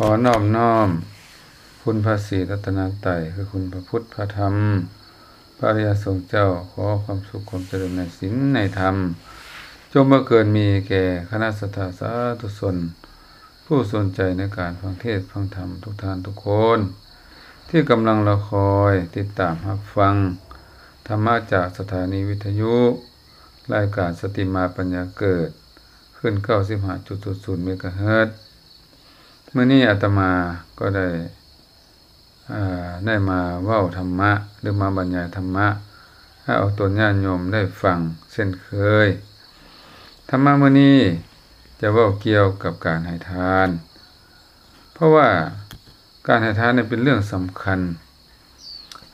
ຂໍນອບນ້ອມຄຸນພະສີລັດຕະນະໄຕ ຄືຄຸນພະພຸດ ພະທຳ ພະອະລິຍະສົງເຈົ້າ. ຂໍຄວາມສຸກຄວາມຈະເລີນໃນສິນໃນທຳ ຈົ່ງບັງເກີດມີແກ່ຄະນະສັດທາສາທຸຊົນ ຜູ້ສົນໃຈໃນການຟັງເທດຟັງທຳທຸກທ່ານທຸກຄົນ ທີ່ກຳລັງລໍຄອຍຕິດຕາມຮັບຟັງທຳມະຈາກສະຖານີວິທະຍຸ ລາຍການສະຕິມາປັນຍາເກີດ ຄື້ນເກົ້າສິບຫ້າຈຸດສູນເມກາເຮີດ. ມື້ນີ້ອາດຕະມາກໍໄດ້ ເອີ ໄດ້ມາເວົ້າທຳມະ ຫຼື ມາບັນຍາຍທຳມະໃຫ້ອອກຕົນຍາດໂຍມໄດ້ຟັງເຊັ່ນເຄີຍ. ທຳມະມື້ນີ້ຈະເວົ້າກ່ຽວກັບການໃຫ້ທານ ເພາະວ່າການໃຫ້ທານນີ້ເປັນເລື່ອງສຳຄັນ.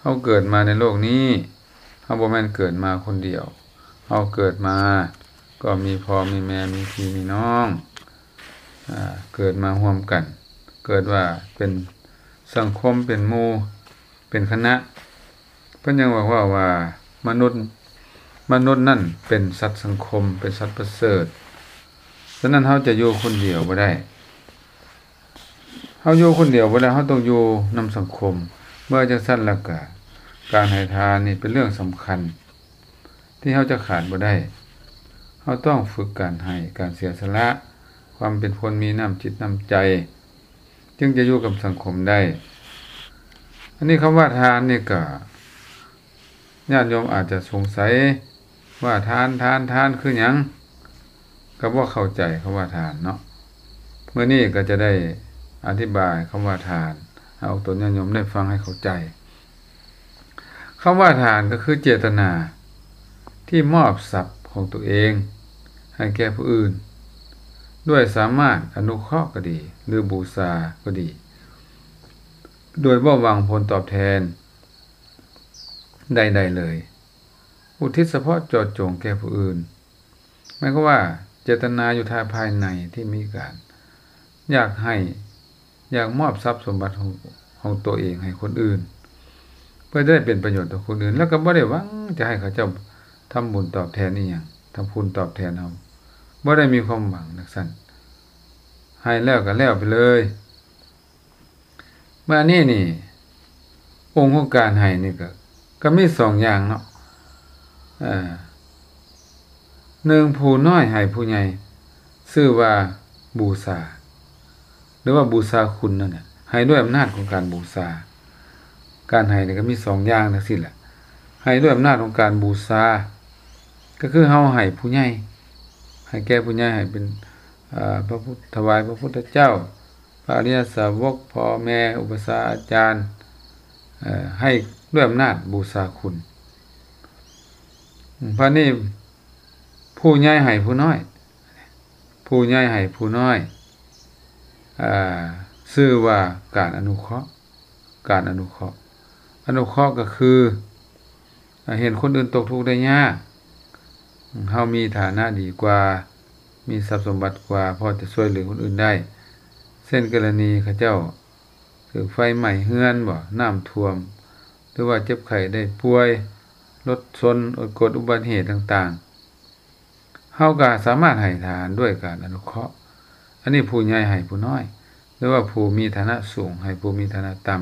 ເຮົາເກີດມາໃນໂລກນີ້ ເຮົາບໍ່ແມ່ນເກີດມາຄົນດຽວ. ເຮົາເກີດມາກໍມີພໍ່ມີແມ່ ມີພີ່ມີນ້ອງ ອາ ເກີດມາຮ່ວມກັນ ເກີດວ່າເປັນສັງຄົມ ເປັນໝູ່ ເປັນຄະນະ. ເພິ່ນຍັງບອກວ່າ ວ່າມະນຸດ ມະນຸດນັ້ນເປັນສັດສັງຄົມ ເປັນສັດປະເສີດ. ສະນັ້ນເຮົາຈະຢູ່ຄົນດຽວບໍ່ໄດ້. ເຮົາຢູ່ຄົນດຽວບໍ່ໄດ້ ເຮົາຕ້ອງຢູ່ນຳສັງຄົມ. ເມື່ອຈັ່ງຊັ້ນແລ້ວກະ ການໃຫ້ທານນີ້ເປັນເລື່ອງສຳຄັນທີ່ເຮົາຈະຂາດບໍ່ໄດ້. ເຮົາຕ້ອງຝຶກການໃຫ້ ການເສຍສະຫຼະ ຄວາມເປັນຄົນມີນ້ຳຈິດນ້ຳໃຈ ຈຶ່ງຈະຢູ່ກັບສັງຄົມໄດ້. ອັນນີ້ຄຳວ່າທານນີ້ກະ ຍາດໂຍມອາດຈະສົງໄສວ່າ ທານ ທານ ທານຄືຫຍັງ? ກໍບໍ່ເຂົ້າໃຈຄຳວ່າທານເນາະ. ມື້ນີ້ກໍຈະໄດ້ອະທິບາຍຄຳວ່າທານ ໃຫ້ອອກຕົນຍາດໂຍມໄດ້ຟັງໃຫ້ເຂົ້າໃຈ. ຄຳວ່າທານກໍຄືເຈດຕະນາທີ່ມອບຊັບຂອງຕົວເອງໃຫ້ແກ່ຜູ້ອື່ນ ດ້ວຍສາມາດອະນຸເຄາະກໍດີ ຫຼື ບູຊາກໍດີ ໂດຍບໍ່ຫວັງຜົນຕອບແທນໃດໆເລີຍ. ອຸທິດສະເພາະເຈາະຈົງແກ່ຜູ້ອື່ນ ໝາຍຄວາມວ່າເຈດຕະນາຢູ່ທາງພາຍໃນທີ່ມີການຢາກໃຫ້ ຢາກມອບຊັບສົມບັດຂອງ ຂອງຕົວເອງໃຫ້ຄົນອື່ນ ເພື່ອຈະໄດ້ເປັນປະໂຫຍດຕໍ່ຄົນອື່ນ ແລ້ວກໍບໍ່ໄດ້ຫວັງຈະໃຫ້ເຂົາເຈົ້າທຳບຸນຕອບແທນອີ່ຫຍັງ ທຳຄຸນຕອບແທນເຮົາ ບໍ່ໄດ້ມີຄວາມຫວັງຈັ່ງຊັ້ນ ໃຫ້ແລ້ວກໍແລ້ວໄປເລີຍ. ມານີ້ນີ້ ອົງຂອງການໃຫ້ນີ້ກໍ ກໍມີສອງຢ່າງເນາະ. ເອີ ໜຶ່ງ ຜູ້ນ້ອຍໃຫ້ຜູ້ໃຫຍ່ ຊື່ວ່າບູຊາ ຫຼືວ່າບູຊາຄຸນນັ້ນແຫຼະ ໃຫ້ດ້ວຍອຳນາດຂອງການບູຊາ. ການໃຫ້ນີ້ກໍມີສອງຢ່າງຈັ່ງຊີ້ແຫຼະ ໃຫ້ດ້ວຍອຳນາດຂອງການບູຊາ ກໍຄືເຮົາໃຫ້ຜູ້ໃຫຍ່ ໃຫ້ແກ່ຜູ້ໃຫຍ່ ໃຫ້ເປັນ ເອີ ພະພຸດ ຖວາຍພະພຸດທະເຈົ້າ ພະອະລິຍະສາວົກ ພໍ່ແມ່ ອຸປະຊາອາຈານ ເອີ ໃຫ້ດ້ວຍອຳນາດບູຊາຄຸນ. ບາດນີ້ ຜູ້ໃຫຍ່ໃຫ້ຜູ້ນ້ອຍ ຜູ້ໃຫຍ່ໃຫ້ຜູ້ນ້ອຍ ເອີ ຊື່ວ່າການອະນຸເຄາະ ການອະນຸເຄາະ ອະນຸເຄາະກໍຄື ເຫັນຄົນອື່ນຕົກທຸກໄດ້ຍາກ ເຮົາມີຖານະດີກວ່າ ມີຊັບສົມບັດກວ່າ ພໍຈະຊ່ວຍເຫຼືອຄົນອື່ນໄດ້ ເຊັ່ນກໍລະນີເຂົາເຈົ້າຖືກໄຟໄໝ້ເຮືອນບໍ ນ້ຳຖ້ວມ ຫຼືວ່າເຈັບໄຂ້ໄດ້ປ່ວຍ ລົດຊົນ ເກີດອຸບັດເຫດຕ່າງໆ ເຮົາກໍສາມາດໃຫ້ທານດ້ວຍການອະນຸເຄາະ. ອັນນີ້ຜູ້ໃຫຍ່ໃຫ້ຜູ້ນ້ອຍ ຫຼືວ່າຜູ້ມີຖານະສູງໃຫ້ຜູ້ມີຖານະຕ່ຳ.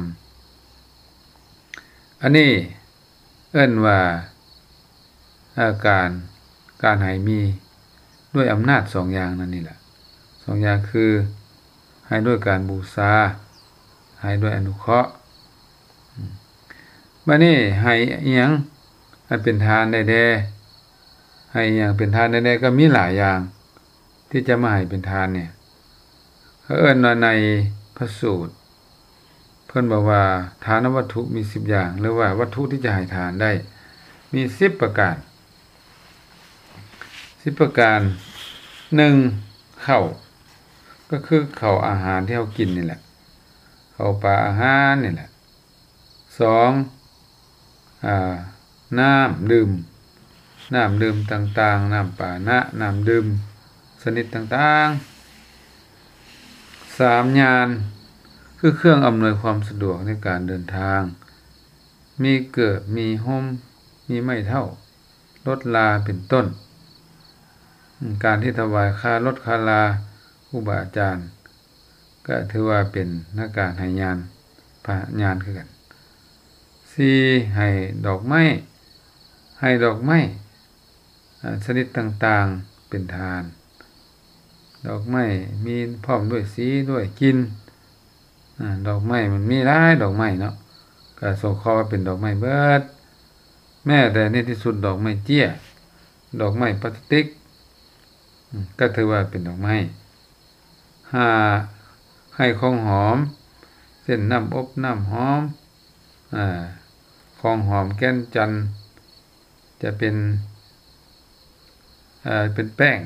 ອັນນີ້ເອີ້ນວ່າ ເອີ ການ ການໃຫ້ມີດ້ວຍອຳນາດສອງຢ່າງນັ້ນນີ້ລະ ສອງຢ່າງຄື ໃຫ້ດ້ວຍການບູຊາ ໃຫ້ດ້ວຍອະນຸເຄາະ. ບາດນີ້ໃຫ້ອີ່ຫຍັງໃຫ້ເປັນທານໄດ້ແດ່? ໃຫ້ອີ່ຫຍັງເປັນທານໄດ້ແດ່? ກໍມີຫຼາຍຢ່າງທີ່ຈະມາໃຫ້ເປັນທານນີ້ ເຂົາເອີ້ນວ່າໃນພະສູດ ເພິ່ນບອກວ່າທານະວັດຖຸມີສິບຢ່າງ ຫຼືວ່າວັດຖຸທີ່ຈະໃຫ້ທານໄດ້ມີສິບປະການ ສິບປະການ. ໜຶ່ງ ເຂົ້າ ກໍຄືເຂົ້າອາຫານທີ່ເຮົາກິນນີ້ແຫຼະ ເຂົ້າປາອາຫານນີ້ແຫຼະ. ສອງ ອາ ນ້ຳດື່ມ ນ້ຳດື່ມຕ່າງໆ ນ້ຳປານະ ນ້ຳດື່ມຊະນິດຕ່າງໆ. ສາມ ຍານ ຄືເຄື່ອງອຳນວຍຄວາມສະດວກໃນການເດີນທາງ ມີເກີບ ມີຮົ່ມ ມີໄມ້ເຖົ້າ ລົດລາເປັນຕົ້ນ. ການທີ່ຖວາຍຄ່າລົດຄ່າລາ ຄູບາອາຈານ ກໍຖືວ່າເປັນນາກາໃຫ້ຍານ ພະຍານຄືກັນ. ສີ່ ໃຫ້ດອກໄມ້ ໃຫ້ດອກໄມ້ ອາ ຊະນິດຕ່າງໆເປັນທານ. ດອກໄມ້ມີພ້ອມດ້ວຍສີດ້ວຍກິ່ນ. ອາ ດອກໄມ້ມັນມີຫຼາຍດອກໄມ້ເນາະ, ກໍສົງເຄາະວ່າເປັນດອກໄມ້ເບິດ, ແມ້ແຕ່ໃນທີ່ສຸດດອກໄມ້ເຈ້ຍ ດອກໄມ້ປາສະຕິກ ອາ ກໍຖືວ່າເປັນດອກໄມ້. ຫ້າ ໃຫ້ຂອງຫອມ ເຊັ່ນ ນ້ຳອົບ ນ້ຳຫອມ ອາ ຂອງຫອມແກ່ນຈັນ ຈະເປັນ ເອີ ເປັນແປ້ງ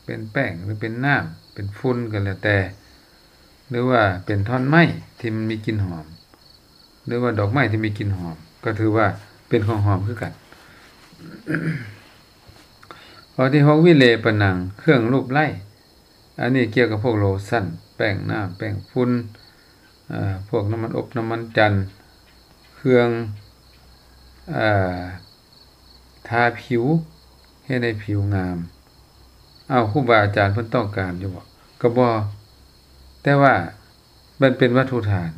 ເປັນແປ້ງ ຫຼື ເປັນນ້ຳ ເປັນຝຸ່ນກໍແລ້ວແຕ່ ຫຼືວ່າເປັນທ່ອນໄມ້ທີ່ມັນມີກິ່ນຫອມ ຫຼືວ່າດອກໄມ້ທີ່ມີກິ່ນຫອມ ກໍຖືວ່າເປັນຂອງຫອມຄືກັນ. ຂໍ້ທີຫົກ ວິເລປະໜັງ ເຄື່ອງລູບໄລ້ ອັນນີ້ກ່ຽວກັບພວກໂລຊັນ ແປ້ງນ້ຳ ແປ້ງຝຸ່ນ ເອີ ພວກນ້ຳມັນອົບ ນ້ຳມັນຈັນ ເຄື່ອງ ເອີ ທາຜິວ ເຮັດໃຫ້ຜິວງາມ. ເອົ້າ ຄູບາອາຈານເພິ່ນຕ້ອງການຢູ່ບໍ່? ກໍບໍ່, ແຕ່ວ່າມັນເປັນວັດຖຸທານ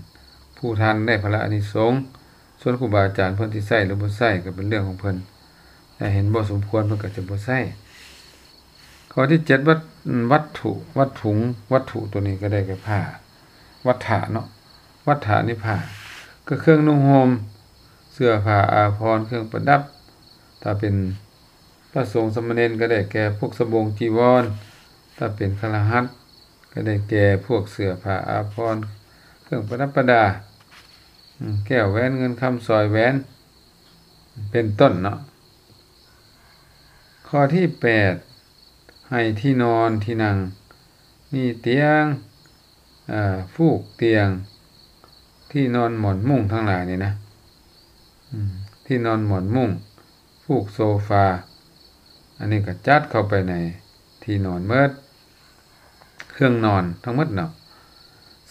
ຜູ້ທານໄດ້ຜະລະອານິສົງ, ສ່ວນຄູບາອາຈານເພິ່ນຊິໃຊ້ ຫຼື ບໍ່ໃຊ້ ກໍເປັນເລື່ອງຂອງເພິ່ນ, ຖ້າເຫັນບໍ່ສົມຄວນ ເພິ່ນກໍຈະບໍ່ໃຊ້. ຂໍ້ທີເຈັດ ວັດ ວັດຖຸ ວັດຖຸ ວັດຖຸຕົວນີ້ກໍໄດ້ແກ່ຜ້າ ວັດຖະເນາະ, ວັດຖະນີ້ຜ້າ ກໍເຄື່ອງນຸ່ງຫົ່ມ ເສື້ອຜ້າອາພອນ ເຄື່ອງປະດັບ. ຖ້າເປັນພະສົງສາມະເນນກໍໄດ້ແກ່ພວກສະບົງຈີວອນ, ຖ້າເປັນຄະລະຫັດກໍໄດ້ແກ່ພວກເສື້ອຜ້າອາພອນ ເຄື່ອງປະດັບປະດາ ອາ ແກ້ວແຫວນ ເງິນຄຳ ສ້ອຍແຫວນ ເປັນຕົ້ນເນາະ. ຂໍ້ທີແປດ ໃຫ້ທີ່ນອນທີ່ນັ່ງ ມີຕຽງ ເອີ ຟູກຕຽງ ທີ່ນອນໝອນມຸ້ງທັງຫຼາຍນີ້ນະ ອາ ທີ່ນອນໝອນມຸ້ງ ຟູກໂຊຟາ ອັນນີ້ກໍຈັດເຂົ້າໄປໃນທີ່ນອນໝົດ ເຄື່ອງນອນທັງໝົດເນາະ.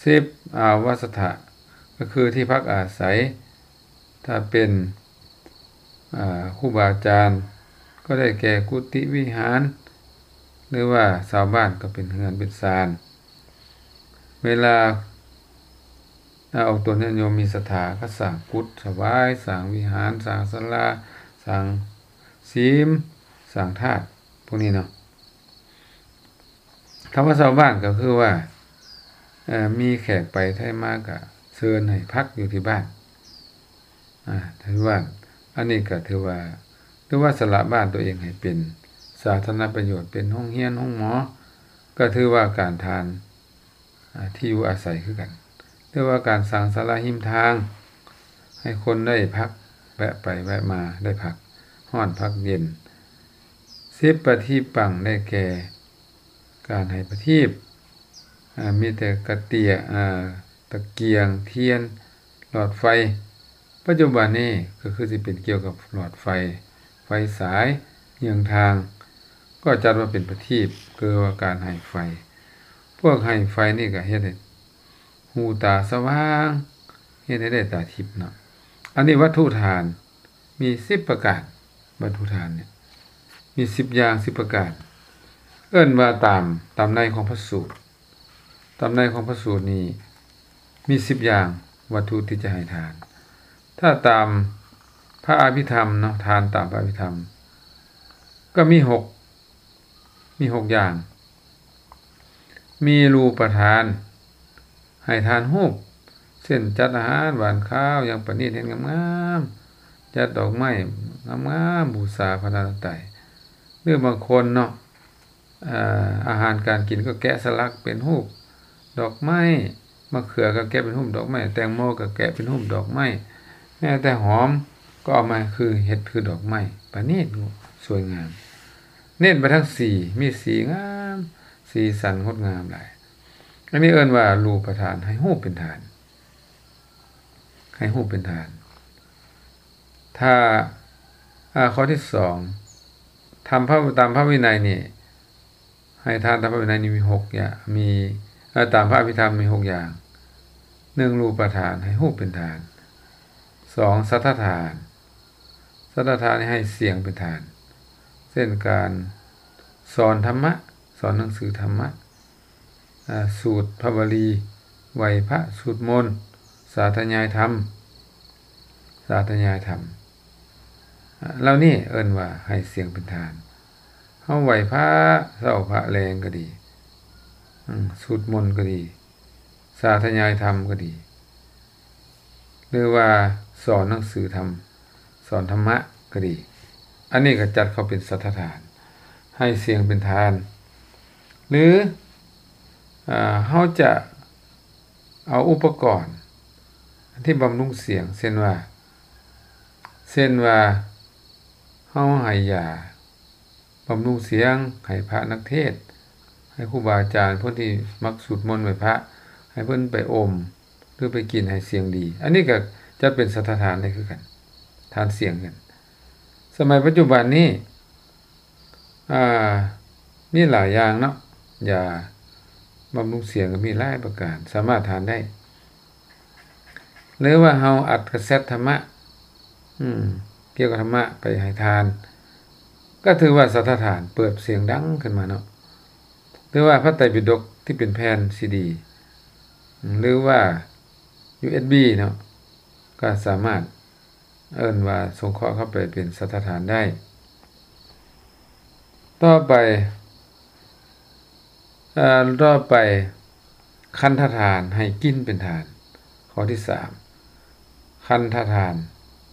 ສິບ ອາວາສະຖະ ກໍຄືທີ່ພັກອາໄສ. ຖ້າເປັນ ອາ ຄູບາອາຈານກໍໄດ້ແກ່ກຸຕິວິຫານ ຫຼືວ່າຊາວບ້ານກໍເປັນເຮືອນເປັນຊານ. ເວລາ ອາ ອອກຕົນຍາດໂຍມມີສັດທາກໍສ້າງກຸດຖວາຍ ສ້າງວິຫານ ສ້າງສາລາ ສ້າງສິມ ສ້າງທາດ ພວກນີ້ເນາະ. ຄຳວ່າຊາວບ້ານກໍຄືວ່າ ເອີ ມີແຂກໄປໄທມາກໍເຊີນໃຫ້ພັກຢູ່ທີ່ບ້ານ ອາ ຖືວ່າ ອັນນີ້ກໍຖືວ່າ ຫຼືວ່າສະຫຼະບ້ານຕົວເອງໃຫ້ເປັນສາທາລະນະປະໂຫຍດ ເປັນໂຮງຮຽນ ໂຮງໝໍ ກໍຖືວ່າການທານ ອາ ທີ່ຢູ່ອາໄສຄືກັນ ຫຼືວ່າການສ້າງສາລາຮິມທາງ ໃຫ້ຄົນໄດ້ພັກ ແວະໄປແວະມາ ໄດ້ພັກຮ້ອນພັກເຢັນ. ສິບ ປະທີປັງ ໄດ້ແກ່ການໃຫ້ປະທີບ ອາ ມີແຕ່ກະເຕຍ ອາ ຕະກຽງ ທຽນ ຫຼອດໄຟ. ປັດຈຸບັນນີ້ກໍຄືຊິເປັນກ່ຽວກັບຫຼອດໄຟ ໄຟສາຍ ເຍືອງທາງ ກໍຈັດວ່າເປັນປະທີບ ຄືວ່າການໃຫ້ໄຟ. ພວກໃຫ້ໄຟນີ້ກໍເຮັດໃຫ້ຫູຕາສະຫວ່າງ ເຮັດໃຫ້ໄດ້ຕາທິບເນາະ. ອັນນີ້ວັດຖຸທານມີສິບປະການ, ວັດຖຸທານນີ້ມີສິບຢ່າງ ສິບປະການ ເອີ້ນວ່າຕາມ ຕາມໃນຂອງພະສູດ. ຕາມໃນຂອງພະສູດນີ້ມີສິບຢ່າງວັດຖຸທີ່ຈະໃຫ້ທານ. ຖ້າຕາມພະອະພິທຳເນາະ, ທານຕາມພະອະພິທຳກໍມີຫົກ ມີຫົກຢ່າງ. ມີຮູປະທານ ໃຫ້ທານຮູບ ເຊັ່ນ ຈັດອາຫານຫວານຄາວຢ່າງປະນີດ ເຮັດງາມໆ ຈັດດອກໄມ້ງາມໆ ບູຊາພະລັດຕະນະໄຕ ຫຼືບາງຄົນເນາະ ອາ ອາຫານການກິນກໍແກະສະຫຼັກເປັນຮູບດອກໄມ້, ມະເຂືອກໍແກະເປັນຮູບດອກໄມ້, ແຕງໂມກໍແກະເປັນຮູບດອກໄມ້, ແມ້ແຕ່ຫອມກໍເອົາມາຄື ເຮັດຄືດອກໄມ້ ປະນີດສວຍງາມ. ເນັ້ນໄປທາງສີ, ມີສີງາມ, ສີສັນງົດງາມຫຼາຍ. ອັນນີ້ເອີ້ນວ່າຮູປະທານ, ໃຫ້ຮູບເປັນທານ, ໃຫ້ຮູບເປັນທານ. ຖ້າ ອາ ຂໍ້ທີສອງ ທຳພະ ຕາມພະວິໄນນີ້ ໃຫ້ທານຕາມພະວິໄນນີ້ມີຫົກຢ່າງ ມີ ເອີ ຕາມພະອະພິທຳມີຫົກຢ່າງ. ໜຶ່ງ ຮູປະທານ, ໃຫ້ຮູບເປັນທານ. ສອງ ສັດຖະທານ, ສັດຖະທານໃຫ້ສຽງເປັນທານ ເຊັ່ນ ການສອນທຳມະ, ສອນໜັງສືທຳມະ, ອາ ສູດພະວະລີ, ໄຫວ້ພະ ສູດມົນ ສາທະຍາຍທຳ ສາທະຍາຍທຳ ເຫຼົ່ານີ້ເອີ້ນວ່າໃຫ້ສຽງເປັນທານ. ເຮົາໄຫວ້ພະເຊົ້າພະແລງກໍດີ ອືມ ສູດມົນກໍດີ ສາທະຍາຍທຳກໍດີ ຫຼືວ່າສອນໜັງສືທຳ ສອນທຳມະກໍດີ ອັນນີ້ກໍຈັດເຂົ້າເປັນສັດຖະຖານ ໃຫ້ສຽງເປັນທານ ຫຼື ອາ ເຮົາຈະເອົາອຸປະກອນທີ່ບຳລຸງສຽງ ເຊັ່ນວ່າ ເຊັ່ນວ່າ ເຮົາໃຫ້ຢາ ບຳລຸງສຽງໃຫ້ພະນັກເທດ ໃຫ້ຄູບາອາຈານ ຄົນທີ່ມັກສູດມົນໄຫວ້ພະ ໃຫ້ເພິ່ນໄປອົມ ຫຼືໄປກິນໃຫ້ສຽງດີ ອັນນີ້ກໍຈັດເປັນສັດຖະຖານໄດ້ຄືກັນ ທານສຽງກັນ. ສະໄໝປັດຈຸບັນນີ້ ອາ ມີຫຼາຍຢ່າງເນາະ ຢາບຳລຸງສຽງກໍມີຫຼາຍປະການ ສາມາດທານໄດ້. ຫຼືວ່າເຮົາອັດກາເຊັດທຳມະ ອືມ ກ່ຽວກັບທຳມະໄປໃຫ້ທານ ກໍຖືວ່າສັດຖະຖານເປີດສຽງດັງຂຶ້ນມາເນາະ ຫຼືວ່າພະໄຕປິດົກທີ່ເປັນແຜ່ນຊີດີ ຫຼືວ່າຢູເອັສບີເນາະ ກໍສາມາດເອີ້ນວ່າສົງເຄາະເຂົ້າໄປເປັນສັດຖະຖານໄດ້. ຕໍ່ໄປ ເອີ ຕໍ່ໄປ ຄັນທະທານໃຫ້ກິ່ນເປັນທານ. ຂໍ້ທີສາມ ຄັນທະທານ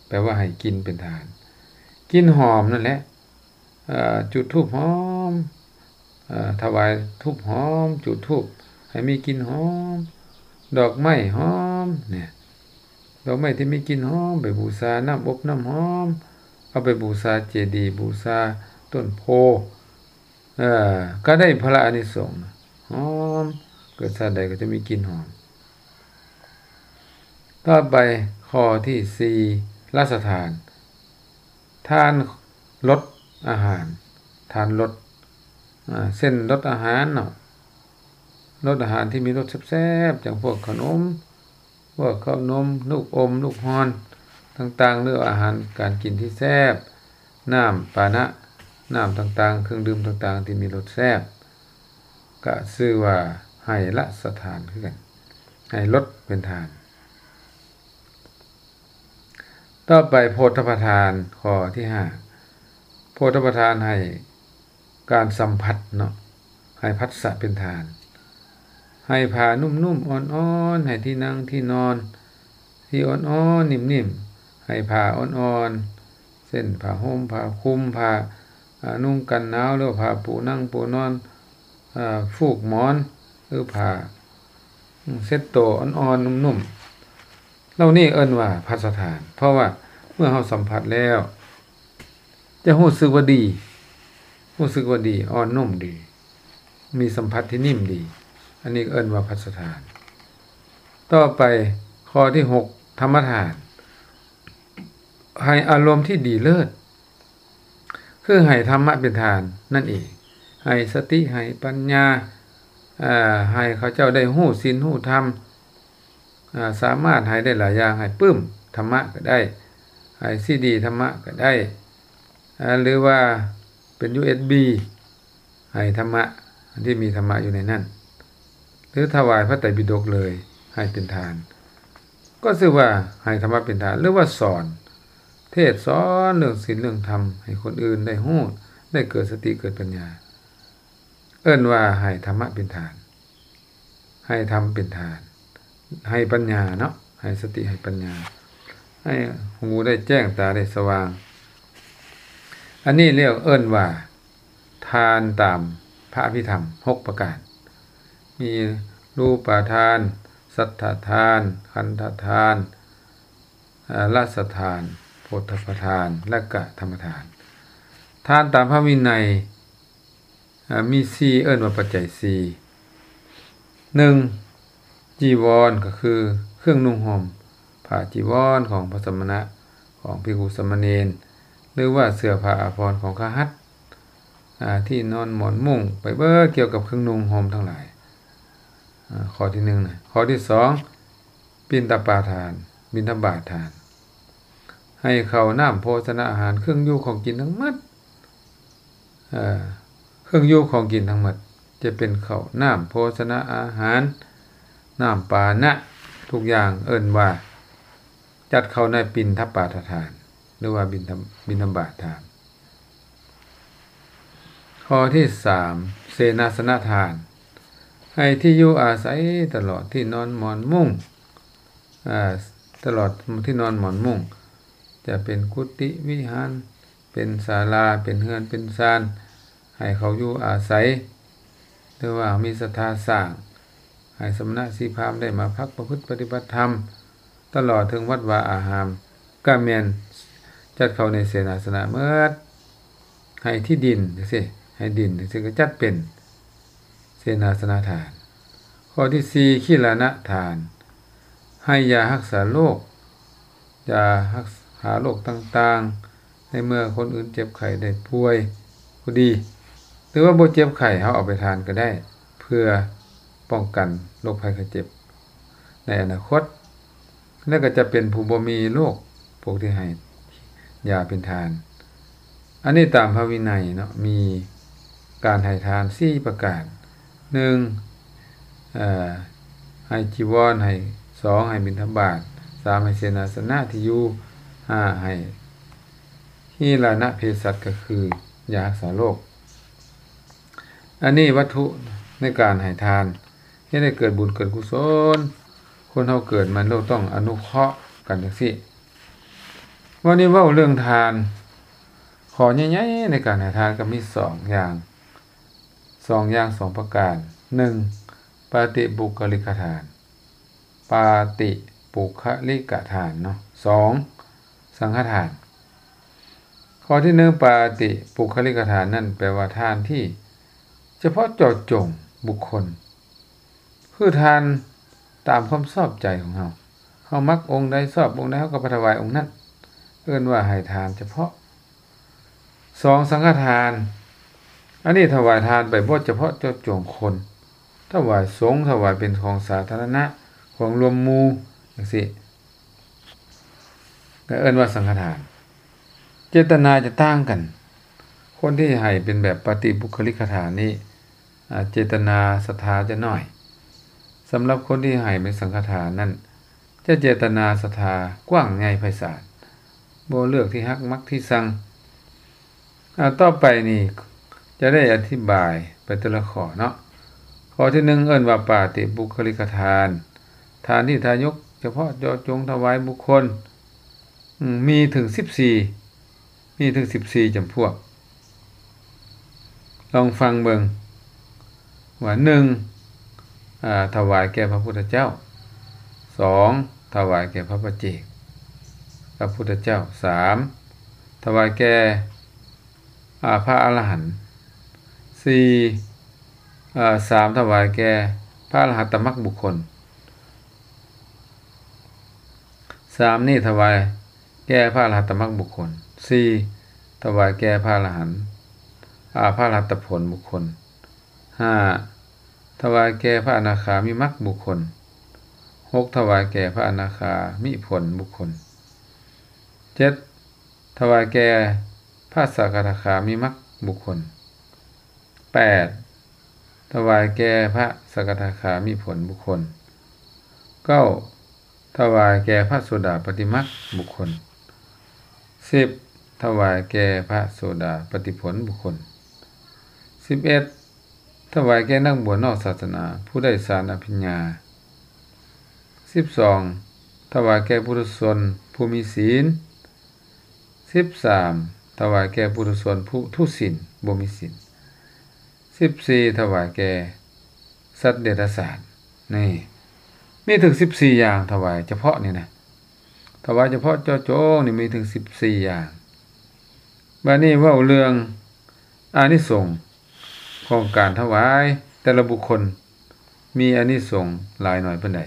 ແປວ່າໃຫ້ກິ່ນເປັນທານ ກິ່ນຫອມນັ້ນແຫຼະ ເອີ ຈູດທູບຫອມ ເອີ ຖວາຍທູບຫອມ ຈູດທູບໃຫ້ມີກິ່ນຫອມ ດອກໄມ້ຫອມ ນີ້ ດອກໄມ້ທີ່ມີກິ່ນຫອມ ໄປບູຊາ ນ້ຳອົບນ້ຳຫອມ ເອົາໄປບູຊາເຈດີ ບູຊາຕົ້ນໂພ ເອີ ກໍໄດ້ຜະລະອານິສົງ ຫອມ ເກີດຊາດໃດກໍຈະມີກິ່ນຫອມ. ຕໍ່ໄປ ຂໍ້ທີສີ່ ລະສະຖານ ທານລົດອາຫານ ທານລົດ ເຊັ່ນ ລົດອາຫານເນາະ ລົດອາຫານທີ່ມີລົດແຊບໆ ຈັ່ງພວກເຂົ້າໜົມ ພວກເຂົ້າໜົມ ລູກອົມ ລູກຮ່ອນຕ່າງໆ ຫຼືອາຫານການກິນທີ່ແຊບ ນ້ຳປານະ ນ້ຳຕ່າງໆ ເຄື່ອງດື່ມຕ່າງໆ ທີ່ມີລົດແຊບ ກະຊື່ວ່າໃຫ້ລະສະຖານຄືກັນ ໃຫ້ລົດເປັນທານ. ຕໍ່ໄປ ໂພດຖະພະທານ ຂໍ້ທີຫ້າ ໂພດຖະພະທານໃຫ້ການສຳຜັດເນາະ ໃຫ້ພັດສະເປັນທານ ໃຫ້ຜ້ານຸ້ມໆ ອ່ອນໆ ໃຫ້ທີ່ນັ່ງທີ່ນອນທີ່ອ່ອນໆ ນິ້ມໆ ໃຫ້ຜ້າອ່ອນໆ ເຊັ່ນ ຜ້າຫົ່ມ ຜ້າຄຸມ ຜ້າ ອາ ນຸ່ງກັນໜາວ ຫຼືວ່າຜ້າປູນັ່ງປູນອນ ອາ ຟູກໝອນ ຫຼືຜ້າ ເຊັດໂຕອ່ອນໆ ນຸ້ມໆ ເຫຼົ່ານີ້ເອີ້ນວ່າພັດສະຖານ ເພາະວ່າເມື່ອເຮົາສຳຜັດແລ້ວ ຈະຮູ້ສຶກວ່າດີ ຮູ້ສຶກວ່າດີ ອ່ອນນຸ້ມດີ ມີສຳຜັດທີ່ນິ້ມດີ ອັນນີ້ເອີ້ນວ່າພັດສະຖານ. ຕໍ່ໄປ ຂໍ້ທີຫົກ ທຳມະທານ ໃຫ້ອາລົມທີ່ດີເລີດ ຄືໃຫ້ທຳມະເປັນທານນັ້ນເອງ ໃຫ້ສະຕິ ໃຫ້ປັນຍາ ເອີ ໃຫ້ເຂົາເຈົ້າໄດ້ຮູ້ສິນຮູ້ທຳ ເອີ ສາມາດໃຫ້ໄດ້ຫຼາຍຢ່າງ ໃຫ້ປຶ້ມທຳມະກໍໄດ້ ໃຫ້ຊີດີທຳມະກໍໄດ້ ເອີ ຫຼືວ່າເປັນຢູເອັສບີ ໃຫ້ທຳມະ ອັນທີ່ມີທຳມະຢູ່ໃນນັ້ນ ຫຼືຖວາຍພະໄຕປິດົກເລີຍ ໃຫ້ເປັນທານ ກໍຊື່ວ່າໃຫ້ທຳມະເປັນທານ ຫຼືວ່າສອນ ເທດສອນເລື່ອງສິນເລື່ອງທຳ ໃຫ້ຄົນອື່ນໄດ້ຮູ້ ໄດ້ເກີດສະຕິເກີດປັນຍາ ເອີ້ນວ່າໃຫ້ທຳມະເປັນທານ ໃຫ້ທຳເປັນທານ ໃຫ້ປັນຍາເນາະ ໃຫ້ສະຕິ ໃຫ້ປັນຍາ ໃຫ້ຫູໄດ້ແຈ້ງ ຕາໄດ້ສະຫວ່າງ ອັນນີ້ລຽກເອີ້ນວ່າ ທານຕາມພະອະພິທຳຫົກປະການ ມີຮູປະທານ ສັດຖະທານ ຄັນທະທານ ເອີ ລະສະຖານ ໂພດຖະພະທານ ແລະກະທຳມະທານ. ທານຕາມພະວິໄນ ເອີ ມີສີ່ ເອີ້ນວ່າປັດໄຈສີ່ ໜຶ່ງ ຈີວອນ ກໍຄືເຄື່ອງນຸ່ງຫົ່ມ ຜ້າຈີວອນຂອງພະສະມະນະ ຂອງພິກຂຸສາມະເນນ ຫຼືວ່າເສື້ອຜ້າອາພອນຂອງຄະຫັດ ອາ ທີ່ນອນໝອນມຸ້ງ ໄປເບີດກ່ຽວກັບເຄື່ອງນຸ່ງຫົ່ມທັງຫຼາຍ ອາ ຂໍ້ທີໜຶ່ງນະ. ຂໍ້ທີສອງ ປິນຕະປາທານ ບິນທະບາດທານ ໃຫ້ເຂົ້ານ້ຳໂພຊະນະອາຫານ ເຄື່ອງຢູ່ຂອງກິນທັງໝົດ ເອີ ເຄື່ອງຢູ່ຂອງກິນທັງໝົດ ຈະເປັນເຂົ້ານ້ຳໂພຊະນະອາຫານ ນ້ຳປານະ ທຸກຢ່າງເອີ້ນວ່າຈັດເຂົ້າໃນປິນທະບາດທານ ຫຼືວ່າບິນທະ ບິນທະບາດທານ. ຂໍ້ທີສາມ ເສນາສະນະທານ ໃຫ້ທີ່ຢູ່ອາໄສຕະຫຼອດທີ່ນອນໝອນມຸ້ງ ອາ ຕະຫຼອດທີ່ນອນໝອນມຸ້ງ ຈະເປັນກຸຕິວິຫານ ເປັນສາລາ ເປັນເຮືອນເປັນຊານ ໃຫ້ເຂົາຢູ່ອາໄສ ຫຼືວ່າມີສັດທາສ້າງ ໃຫ້ສະມະນະຊີພາມໄດ້ມາພັກປະພຶດປະຕິບັດທຳ ຕະຫຼອດເຖິງວັດວາອາຮາມ ກະແມ່ນຈັດເຂົ້າໃນເສນາສະນະໝົດ. ໃຫ້ທີ່ດິນຈັ່ງຊີ້ ໃຫ້ດິນຈັ່ງຊີ້ກະຈັດເປັນເສນາສະນະທານ. ຂໍ້ທີສີ່ ຄີລານະທານ ໃຫ້ຢາຮັກສາໂລກ ຢາຮັກສາໂລກຕ່າງໆ ໃນເມື່ອຄົນອື່ນເຈັບໄຂ້ໄດ້ປ່ວຍກໍດີ ຫຼືວ່າບໍ່ເຈັບໄຂ້ ເຮົາເອົາໄປທານກໍໄດ້ ເພື່ອປ້ອງກັນໂລກໄພໄຂ້ເຈັບໃນອະນາຄົດ ແລະກໍຈະເປັນຜູ້ບໍ່ມີໂລກ ພວກທີ່ໃຫ້ຢາເປັນທານ. ອັນນີ້ຕາມພະວິໄນເນາະ ມີການໃຫ້ທານສີ່ປະການ ໜຶ່ງ ເອີ ໃຫ້ຈີວອນ ໃຫ້ ສອງ ໃຫ້ບິນທະບາດ ສາມ ໃຫ້ເສນາສະນະທີ່ຢູ່ ຫ້າ ໃຫ້ຄີລານະເພສັດ ກໍຄືຢາຮັກສາໂລກ. ອັນນີ້ວັດຖຸໃນການໃຫ້ທານ ເຮັດໃຫ້ເກີດບຸນເກີດກຸສົນ. ຄົນເຮົາເກີດມາໂລກຕ້ອງອະນຸເຄາະກັນຈັ່ງຊີ້. ວັນນີ້ເວົ້າເລື່ອງທານ ຂໍ້ໃຫຍ່ໆໃນການໃຫ້ທານກໍມີສອງຢ່າງ ສອງຢ່າງ ສອງປະການ. ໜຶ່ງ ປາຕິປຸກຄະລິກະທານ ປາຕິປຸກຄະລິກະທານເນາະ. ສອງ ສັງຄະທານ. ຂໍ້ທີໜຶ່ງ ປາຕິປຸກຄະລິກະທານນັ້ນ ແປວ່າທານທີ່ສະເພາະເຈາະຈົງບຸກຄົນ ຄືທານຕາມຄວາມຊອບໃຈຂອງເຮົາ ເຮົາມັກອົງໃດ ຊອບອົງໃດ ເຮົາກໍໄປຖວາຍອົງນັ້ນ ເອີ້ນວ່າໃຫ້ທານສະເພາະ. ສອງ ສັງຄະທານ ອັນນີ້ຖວາຍທານໄປບໍ່ສະເພາະເຈາະຈົງຄົນ ຖວາຍສົງ ຖວາຍເປັນຂອງສາທາລະນະ ຂອງລວມໝູ່ຈັ່ງຊີ້ ກໍເອີ້ນວ່າສັງຄະທານ. ເຈດຕະນາຈະຕ່າງກັນ ຄົນທີ່ໃຫ້ເປັນແບບປາຕິປຸກຄະລິກະທານນີ້ ອາ ເຈດຕະນາສັດທາຈະໜ້ອຍ. ສຳລັບຄົນທີ່ໃຫ້ເປັນສັງຄະທານນັ້ນ ຈະເຈດຕະນາສັດທາກວ້າງໃຫຍ່ໄພສານ ບໍ່ເລືອກທີ່ຮັກມັກທີ່ຊັງ. ອາ ຕໍ່ໄປນີ້ຈະໄດ້ອະທິບາຍໄປແຕ່ລະຂໍ້ເນາະ. ຂໍ້ທີໜຶ່ງ ເອີ້ນວ່າປາຕິປຸກຄະລິກະທານ ທານທີ່ທາຍົກສະເພາະເຈາະຈົງຖວາຍບຸກຄົນ ອາ ມີເຖິງສິບສີ່ ມີເຖິງສິບສີ່ຈຳພວກ. ລອງຟັງເບິ່ງວ່າ ໜຶ່ງ ອາ ຖວາຍແກ່ພະພຸດທະເຈົ້າ. ສອງ ຖວາຍແກ່ພະປະເຈກ ພະພຸດທະເຈົ້າ. ສາມ ຖວາຍແກ່ ອາ ພະອະລະຫັນ. ສີ່ ອາ ສາມ ຖວາຍແກ່ພະອະລະຫັດຕະມັກບຸກຄົນ. ສາມນີ້ຖວາຍແກ່ພະອະລະຫັດຕະມັກບຸກຄົນ. ສີ່ ຖວາຍແກ່ພະອະລະຫັນ ອາ ພະອະລະຫັດຕະຜົນບຸກຄົນ. ຫ້າ ຖວາຍແກ່ພະອະນາຄາມິມັກບຸກຄົນ. ຫົກ ຖວາຍແກ່ພະອະນາຄາມິຜົນບຸກຄົນ. ເຈັດ ຖວາຍແກ່ພະສະກະທາຄາມິມັກບຸກຄົນ. ແປດ ຖວາຍແກ່ພະສະກະທາຄາມິຜົນບຸກຄົນ. ເກົ້າ ຖວາຍແກ່ພະໂສດາປະຕິມັກບຸກຄົນ. ສິບ ຖວາຍແກ່ພະໂສດາປະຕິຜົນບຸກຄົນ. ສິບເອັດ ຖວາຍແກ່ນັກບວດນອກສາສະໜາຜູ້ໄດ້ສານອະພິນຍາ. ສິບສອງ ຖວາຍແກ່ປຸຖຸຊົນຜູ້ມີສິນ. ສິບສາມ ຖວາຍແກ່ປຸຖຸຊົນຜູ້ທຸສິນ ບໍ່ມີສິນ. ສິບສີ່ ຖວາຍແກ່ສັດເດຍລະສານ. ນີ້ ມີເຖິງສິບສີ່ຢ່າງ ຖວາຍສະເພາະນີ້ນະ ຖວາຍສະເພາະເຈາະຈົງນີ້ມີເຖິງສິບສີ່ຢ່າງ. ບາດນີ້ເວົ້າເລື່ອງອານິສົງຂອງການຖວາຍ ແຕ່ລະບຸກຄົນ ມີອານິສົງຫຼາຍໜ້ອຍປານໃດ?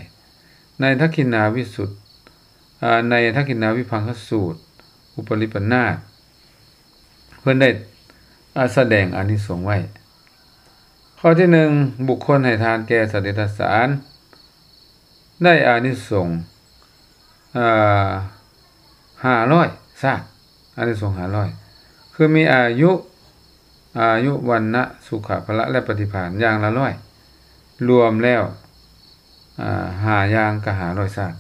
ໃນທັກຂິນາວິສຸດ ອາ ໃນທັກຂິນາວິພັງຄະສູດ ອຸປະລິປະນາດ ເພິ່ນໄດ້ ອາ ສະແດງອານິສົງໄວ້. ຂໍ້ທີໜຶ່ງ ບຸກຄົນໃຫ້ທານແກ່ສັດເດຍລະສານ ໄດ້ອານິສົງ ອາ ຫ້າຮ້ອຍຊາດ ອານິສົງຫ້າຮ້ອຍ ຄືມີອາຍຸ ອາຍຸ ວັນນະ ສຸຂະ ພະລະ ແລະ ປະຕິພານຢ່າງລະຮ້ອຍ ລວມແລ້ວ ອາ ຫ້າຢ່າງກໍຫ້າຮ້ອຍຊາດ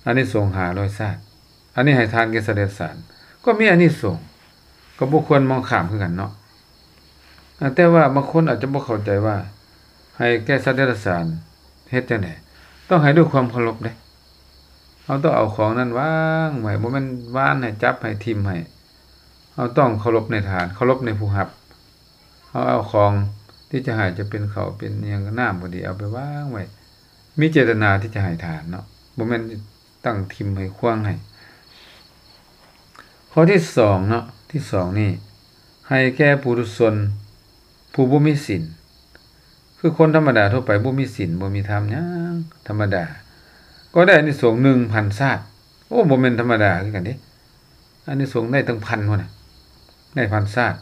ອານິສົງຫ້າຮ້ອຍຊາດ. ອັນນີ້ໃຫ້ທານແກ່ສັດເດຍລະສານ ກໍມີອານິສົງ ກໍບໍ່ຄວນມອງຂ້າມຄືກັນເນາະ. ອາ ແຕ່ວ່າບາງຄົນອາດຈະບໍ່ເຂົ້າໃຈວ່າ ໃຫ້ແກ່ສັດເດຍລະສານເຮັດຈັ່ງໃດ? ຕ້ອງໃຫ້ດ້ວຍຄວາມເຄົາລົບເດ້. ເຮົາຕ້ອງເອົາຂອງນັ້ນວາງໄວ້ ບໍ່ແມ່ນຫວ່ານໃຫ້ ຈັບໃຫ້ ຖິ້ມໃຫ້. ເຮົາຕ້ອງເຄົາລົບໃນທານ ເຄົາລົບໃນຜູ້ຮັບ. ເຮົາເອົາຂອງທີ່ຈະໃຫ້ ຈະເປັນເຂົ້າເປັນຫຍັງ ນ້ຳກໍດີ ເອົາໄປວາງໄວ້ ມີເຈດຕະນາທີ່ຈະໃຫ້ທານເນາະ ບໍ່ແມ່ນຕັ້ງຖິ້ມໃຫ້ຂວ້າງໃຫ້. ຂໍ້ທີສອງເນາະ ທີສອງນີ້ ໃຫ້ແກ່ປຸຖຸຊົນຜູ້ບໍ່ມີສິນ ຄືຄົນທຳມະດາທົ່ວໄປ ບໍ່ມີສິນ ບໍ່ມີທຳຫຍັງ ທຳມະດາ ກໍໄດ້ອານິສົງໜຶ່ງພັນຊາດ. ໂອ້ ບໍ່ແມ່ນທຳມະດາຄືກັນເດ້ ອານິສົງໄດ້ຕັ້ງພັນພຸ້ນນະ ໄດ້ພັນຊາດ.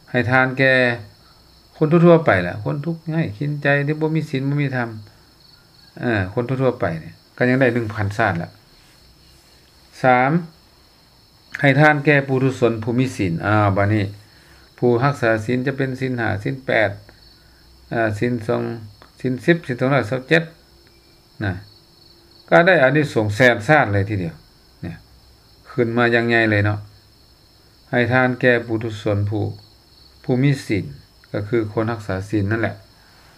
ໃຫ້ທານແກ່ຄົນທົ່ວໆໄປລະ ຄົນທຸກໄຮ້ກິນໃຈ ທີ່ບໍ່ມີສິນ ບໍ່ມີທຳ ເອີ ຄົນທົ່ວໆໄປນີ້ ກໍຍັງໄດ້ໜຶ່ງພັນຊາດລະ. ສາມ ໃຫ້ທານແກ່ປຸຖຸຊົນຜູ້ມີສິນ. ອ້າວ ບາດນີ້ ຜູ້ຮັກສາສິນ ຈະເປັນສິນຫ້າ ສິນແປດ ອາ ສິນສອງ ສິນສິບ ສິນສອງຮ້ອຍຊາວເຈັດ ນະ ກໍໄດ້ອານິສົງແສນຊາດເລີຍທີດຽວ ເນຍ ຂຶ້ນມາຢ່າງໃຫຍ່ເລີຍເນາະ. ໃຫ້ທານແກ່ປຸຖຸຊົນຜູ້ ຜູ້ມີສິນ ກໍຄືຄົນຮັກສາສິນນັ້ນແຫຼະ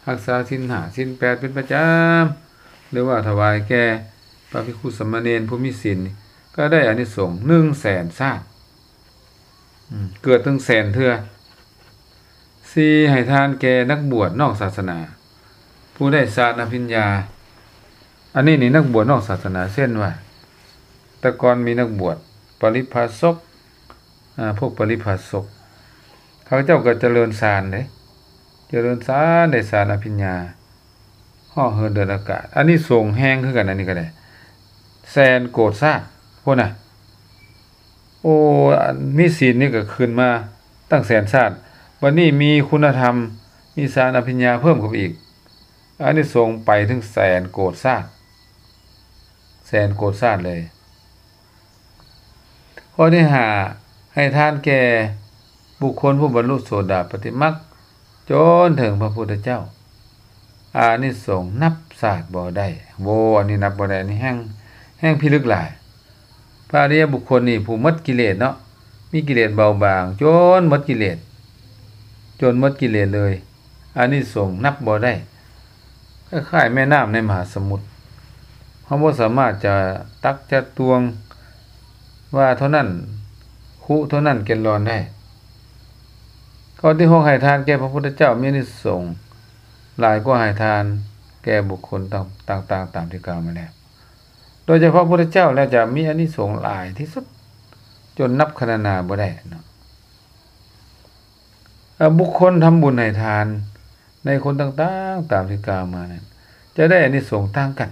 ຮັກສາສິນຫ້າ ສິນແປດເປັນປະຈຳ ຫຼືວ່າຖວາຍແກ່ພະພິກຂຸສາມະເນນຜູ້ມີສິນ ກໍໄດ້ອານິສົງໜຶ່ງແສນຊາດ. ອືມ ເກີດເຖິງແສນເທື່ອ. ສີ່ ໃຫ້ທານແກ່ນັກບວດນອກສາສະໜາ ຜູ້ໄດ້ສານອະພິນຍາ. ອັນນີ້ນີ້ ນັກບວດນອກສາສະໜາ ເຊັ່ນວ່າ ແຕ່ກ່ອນມີນັກບວດປະລິພາສົກ ອາ ພວກປະລິພາສົກ ເຂົາເຈົ້າກໍຈະເລີນສານເດ້ ຈະເລີນສານ ໄດ້ສານອະພິນຍາ ເຫາະເຫີນເດີນອາກາດ. ອານິສົງແຮງຄືກັນ ອັນນີ້ກໍໄດ້ແສນໂກດຊາດພຸ້ນນະ. ໂອ້ ອັນມີສິນນີ້ກໍຂຶ້ນມາຕັ້ງແສນຊາດ ບັດນີ້ມີຄຸນນະທຳ ມີສານອະພິນຍາເພີ່ມເຂົ້າໄປອີກ ອານິສົງໄປເຖິງແສນໂກດຊາດ ແສນໂກດຊາດເລີຍ. ຂໍ້ທີຫ້າ ໃຫ້ທານແກ່ບຸກຄົນຜູ້ບັນລຸໂສດາປັດຕິມັກ ຈົນເຖິງພະພຸດທະເຈົ້າ ອານິສົງນັບຊາດບໍ່ໄດ້. ໂອ້ ອັນນີ້ນັບບໍ່ໄດ້ ອັນນີ້ແຮ່ງ ແຮ່ງພິລຶກຫຼາຍ. ພະອະລິຍະບຸກຄົນນີ້ ຜູ້ໝົດກິເລດເນາະ ມີກິເລດເບົາບາງ ຈົນໝົດກິເລດ ຈົນໝົດກິເລດເລີຍ ອານິສົງນັບບໍ່ໄດ້ ຄ້າຍໆແມ່ນ້ຳໃນມະຫາສະໝຸດ ເຮົາບໍ່ສາມາດຈະຕັກຈະຕວງວ່າເທົ່ານັ້ນ ຄຸເທົ່ານັ້ນແກນລອນໄດ້. ຂໍ້ທີຫົກ ໃຫ້ທານແກ່ພະພຸດທະເຈົ້າມີອານິສົງຫຼາຍກວ່າໃຫ້ທານແກ່ບຸກຄົນຕ່າງໆຕາມທີ່ກ່າວມາແລ້ວ. ໂດຍສະເພາະພະພຸດທະເຈົ້າແລ້ວຈະມີອານິສົງຫຼາຍທີ່ສຸດ ຈົນນັບຄະນະນາບໍ່ໄດ້ເນາະ. ເອີ ບຸກຄົນທຳບຸນໃຫ້ທານໃນຄົນຕ່າງໆຕາມທີ່ກ່າວມານັ້ນ ຈະໄດ້ອານິສົງຕ່າງກັນ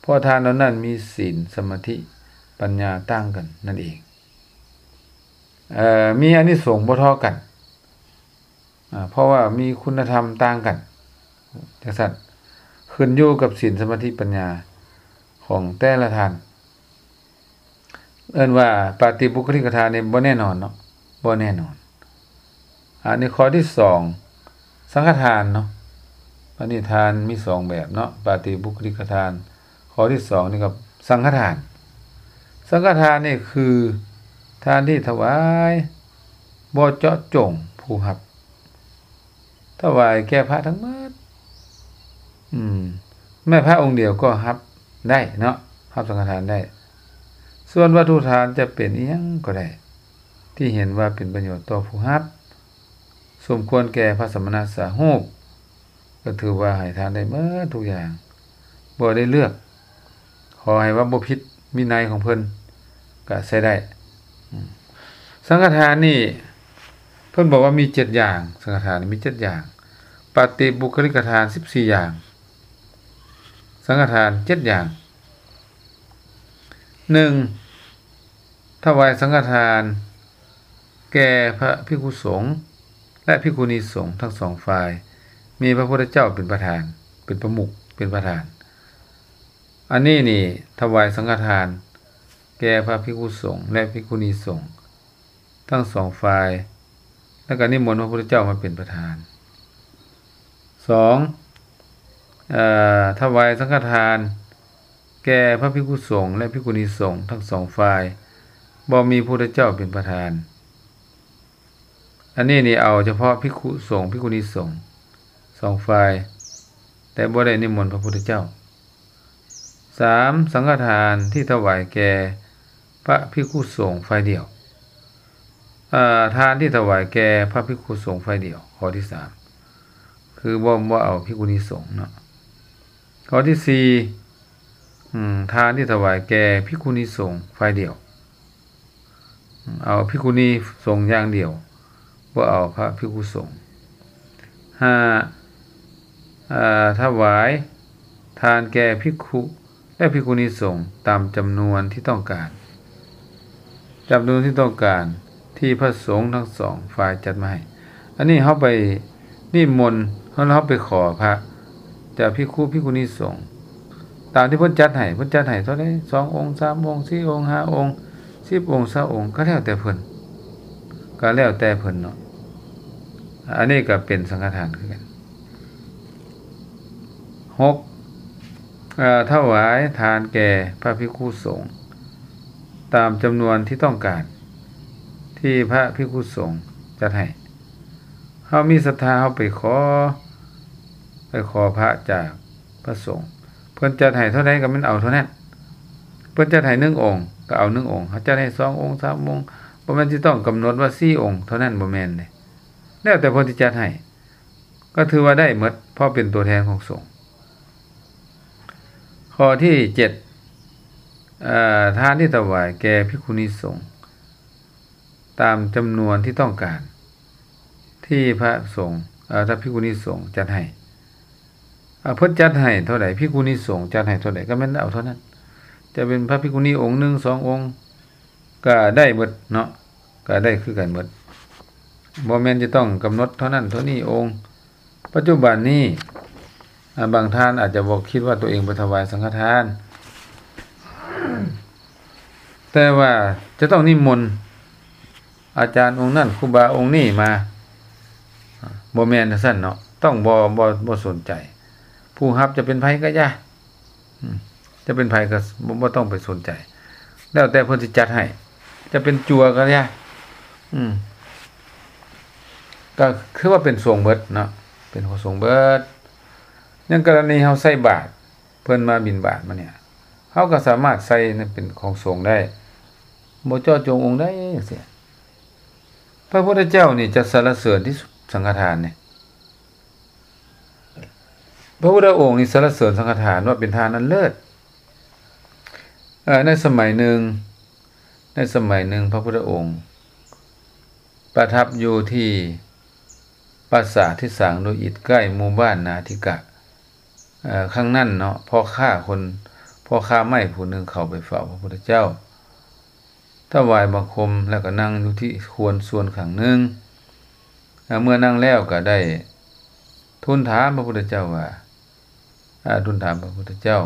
ເພາະທ່ານເຫຼົ່ານັ້ນມີສິນ ສະມາທິ ປັນຍາຕ່າງກັນນັ້ນເອງ. ເອີ ມີອານິສົງບໍ່ທໍ່ກັນ ອາ ເພາະວ່າມີຄຸນນະທຳຕ່າງກັນ ຈັ່ງຊັ້ນ ຂຶ້ນຢູ່ກັບສິນ ສະມາທິ ປັນຍາຂອງແຕ່ລະທ່ານ. ເອີ້ນວ່າປາຕິບຸກຄະລິກະທານນີ້ບໍ່ແນ່ນອນເນາະ ບໍ່ແນ່ນອນ. ອັນນີ້ຂໍ້ທີສອງ ສັງຄະທານເນາະ. ອັນນີ້ທານມີສອງແບບເນາະ ປາຕິບຸກຄະລິກະທານ. ຂໍ້ທີສອງນີ້ກໍສັງຄະທານ. ສັງຄະທານນີ້ຄືທານທີ່ຖວາຍບໍ່ເຈາະຈົງຜູ້ຮັບ ຖວາຍແກ່ພະທັງໝົດ. ອືມ ແມ່ນພະອົງດຽວກໍຮັບໄດ້ເນາະ ຮັບສັງຄະທານໄດ້. ສ່ວນວັດຖຸທານຈະເປັນອີ່ຫຍັງກໍໄດ້ ທີ່ເຫັນວ່າເປັນປະໂຫຍດຕໍ່ຜູ້ຮັບ ສົມຄວນແກ່ພະສະມະນະສາຮູບ ກໍຖືວ່າໃຫ້ທານໄດ້ໝົດທຸກຢ່າງ ບໍ່ໄດ້ເລືອກ ຂໍໃຫ້ວ່າບໍ່ຜິດວິໄນຂອງເພິ່ນກະໃຊ້ໄດ້. ອືມ ສັງຄະທານນີ້ເພິ່ນບອກວ່າມີເຈັດຢ່າງ ສັງຄະທານນີ້ມີເຈັດຢ່າງ ປະຕິບຸກຄະລິກະທານສິບສີ່ຢ່າງ ສັງຄະທານເຈັດຢ່າງ. ໜຶ່ງ ຖວາຍສັງຄະທານແກ່ພະພິກຂຸສົງ ແລະ ພິກຂຸນີສົງທັງສອງຝ່າຍ ມີພະພຸດທະເຈົ້າເປັນປະທານ ເປັນປະມຸກ ເປັນປະທານ. ອັນນີ້ນີ້ຖວາຍສັງຄະທານແກ່ພະພິກຂຸສົງ ແລະ ພິກຂຸນີສົງທັງສອງຝ່າຍ ແລ້ວກໍນິມົນພະພຸດທະເຈົ້າມາເປັນປະທານ. ສອງ ເອີ ຖວາຍສັງຄະທານແກ່ພະພິກຂຸສົງ ແລະ ພິກຂຸນີສົງທັງສອງຝ່າຍ, ບໍ່ມີພະພຸດທະເຈົ້າເປັນປະທານ. ອັນນີ້ນີ້ເອົາສະເພາະພິກຂຸສົງ ພິກຂຸນີສົງສອງຝ່າຍ, ແຕ່ບໍ່ໄດ້ນິມົນພະພຸດທະເຈົ້າ. ສາມ ສັງຄະທານທີ່ຖວາຍແກ່ພະພິກຂຸສົງຝ່າຍດຽວ, ເອີ ທານທີ່ຖວາຍແກ່ພະພິກຂຸສົງຝ່າຍດຽວ, ຂໍ້ທີສາມ ຄືບໍ່ ບໍ່ເອົາພິກຂຸນີສົງເນາະ. ຂໍ້ທີສີ່ ອາ ທານທີ່ຖວາຍແກ່ພິກຂຸນີສົງຝ່າຍດຽວ, ເອົາພິກຂຸນີສົງຢ່າງດຽວ, ບໍ່ເອົາພະພິກຂຸສົງ. ຫ້າ ອາ ຖວາຍທານແກ່ພິກຂຸ ແລະ ພິກຂຸນີສົງຕາມຈຳນວນທີ່ຕ້ອງການ, ຈຳນວນທີ່ຕ້ອງການທີ່ພະສົງທັງສອງຝ່າຍຈັດມາໃຫ້. ອັນນີ້ເຮົາໄປນິມົນ ເຮົາ ເຮົາໄປຂໍພະຈາກພິກຂຸ ພິກຂຸນີສົງ ຕາມທີ່ເພິ່ນຈັດໃຫ້, ເພິ່ນຈັດໃຫ້ເທົ່າໃດ ສອງອົງ ສາມອົງ ສີ່ອົງ ຫ້າອົງ ສິບອົງ ຊາວອົງ ກໍແລ້ວແຕ່ເພິ່ນ, ກໍແລ້ວແຕ່ເພິ່ນເນາະ. ອັນນີ້ກໍເປັນສັງຄະທານຄືກັນ. ຫົກ ເອີ ຖວາຍທານແກ່ພະພິກຂຸສົງຕາມຈຳນວນທີ່ຕ້ອງການ ທີ່ພະພິກຂຸສົງຈັດໃຫ້. ເຮົາມີສັດທາ ເຮົາໄປຂໍ ໄປຂໍພະຈາກພະສົງ, ເພິ່ນຈັດໃຫ້ເທົ່າໃດກໍແມ່ນເອົາເທົ່ານັ້ນ. ເພິ່ນຈັດໃຫ້ໜຶ່ງອົງ ກໍເອົາໜຶ່ງອົງ, ເຂົາຈັດໃຫ້ສອງອົງ ສາມອົງ, ບໍ່ແມ່ນຊິຕ້ອງກຳນົດວ່າສີ່ອົງເທົ່ານັ້ນ, ບໍ່ແມ່ນເດ້, ແລ້ວແຕ່ເພິ່ນຊິຈັດໃຫ້ ກໍຖືວ່າໄດ້ໝົດ ເພາະເປັນຕົວແທນຂອງສົງ. ຂໍ້ທີເຈັດ ເອີ ທານທີ່ຖວາຍແກ່ພິກຂຸນີສົງຕາມຈຳນວນທີ່ຕ້ອງການ ທີ່ພະສົງ ເອີ ພະພິກຂຸນີສົງຈັດໃຫ້. ເອີ ເພິ່ນຈັດໃຫ້ເທົ່າໃດ ພິກຂຸນີສົງຈັດໃຫ້ເທົ່າໃດ ກໍແມ່ນເອົາເທົ່ານັ້ນ. ຈະເປັນພະພິກຂຸນີອົງໜຶ່ງ ສອງອົງ ກໍໄດ້ໝົດເນາະ, ກໍໄດ້ຄືກັນໝົດ, ບໍ່ແມ່ນຈະຕ້ອງກຳນົດເທົ່ານັ້ນເທົ່ານີ້ອົງ. ປັດຈຸບັນນີ້ ອາ ບາງທ່ານອາດຈະບໍ່ຄິດວ່າຕົວເອງໄປຖວາຍສັງຄະທານ, ແຕ່ວ່າຈະຕ້ອງນິມົນອາຈານອົງນັ້ນ ຄູບາອົງນີ້ມາ, ບໍ່ແມ່ນຈັ່ງຊັ້ນເນາະ, ຕ້ອງບໍ່ ບໍ່ ບໍ່ສົນໃຈ ຜູ້ຮັບຈະເປັນໃຜກໍຢ່າ. ອືມ ຈະເປັນໃຜກໍ ບໍ່ ບໍ່ຕ້ອງໄປສົນໃຈ, ແລ້ວແຕ່ເພິ່ນຊິຈັດໃຫ້, ຈະເປັນຈົວກໍຢ່າ. ອືມ ກໍຄືວ່າເປັນສົງເບິດເນາະ, ເປັນຂອງສົງເບິດ. ຢ່າງກໍລະນີເຮົາໃສ່ບາດ, ເພິ່ນມາບິນບາດມານີ້, ເຮົາກໍສາມາດໃສ່ເປັນຂອງສົງໄດ້, ບໍ່ເຈາະຈົງອົງໃດຈັ່ງຊີ້. ພະພຸດທະເຈົ້ານີ້ຈະສັນລະເສີນທີ່ສຸດສັງຄະທານນີ້. ພະພຸດທະອົງນີ້ສັນລະເສີນສັງຄະທານວ່າເປັນທານອັນເລີດ. ເອີ ໃນສະໄໝໜຶ່ງ, ໃນສະໄໝໜຶ່ງ ພະພຸດທະອົງປະທັບຢູ່ທີ່ປາສາດທີ່ສ້າງດ້ວຍອິດໃກ້ໝູ່ບ້ານນາທິກະ. ເອີ ຄັ້ງນັ້ນເນາະ, ພໍ່ຄ້າຄົນ, ພໍ່ຄ້າໄມ້ຜູ້ໜຶ່ງເຂົ້າໄປເຝົ້າພະພຸດທະເຈົ້າ, ຖວາຍບັງຄົມ ແລ້ວກໍນັ່ງຢູ່ທີ່ຄວນສ່ວນຂ້າງໜຶ່ງ. ເມື່ອນັ່ງແລ້ວກໍໄດ້ທູນຖາມພະພຸດທະເຈົ້າວ່າ, ອາ, ທູນຖາມພະພຸດທະເຈົ້າ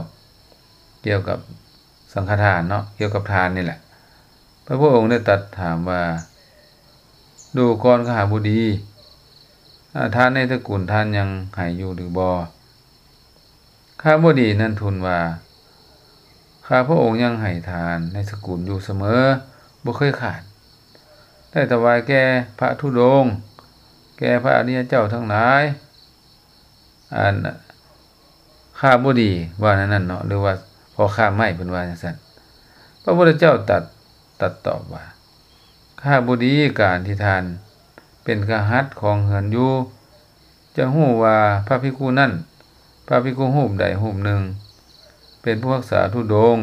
ກ່ຽວກັບສັງຄະທານເນາະ, ກ່ຽວກັບທານນີ້ແຫຼະ. ພະພຸດທະອົງໄດ້ຕັດຖາມວ່າ, ດູກ່ອນຄະຫະບໍດີ, ອາ, ທານໃນຕະກຸນທ່ານຍັງໃຫ້ຢູ່ຫຼືບໍ່? ຄະຫະບໍດີນັ້ນທູນວ່າ, ຂ້າພະອົງຍັງໃຫ້ທານໃນສະກຸນຢູ່ສະເໝີ, ບໍ່ເຄີຍຂາດ. ໄດ້ຖວາຍແກ່ພະທຸດົງ, ແກ່ພະອະລິຍະເຈົ້າທັງຫຼາຍ. ອັນ ຄະຫະບໍດີວ່າແນວນັ້ນເນາະ, ຫຼືວ່າພໍ່ຄ້າໄມ້ເພິ່ນວ່າຈັ່ງຊັ້ນ. ພະພຸດທະເຈົ້າຕັດ, ຕັດຕອບວ່າ, ຄະຫະບໍດີ, ການທີ່ທ່ານເປັນຄະຫັດຄອງເຮືອນຢູ່, ຈະຮູ້ວ່າພະພິກຂຸນັ້ນ, ພະພິກຂຸຮູບໃດຮູບໜຶ່ງ ເປັນຜູ້ຮັກສາທຸດົງ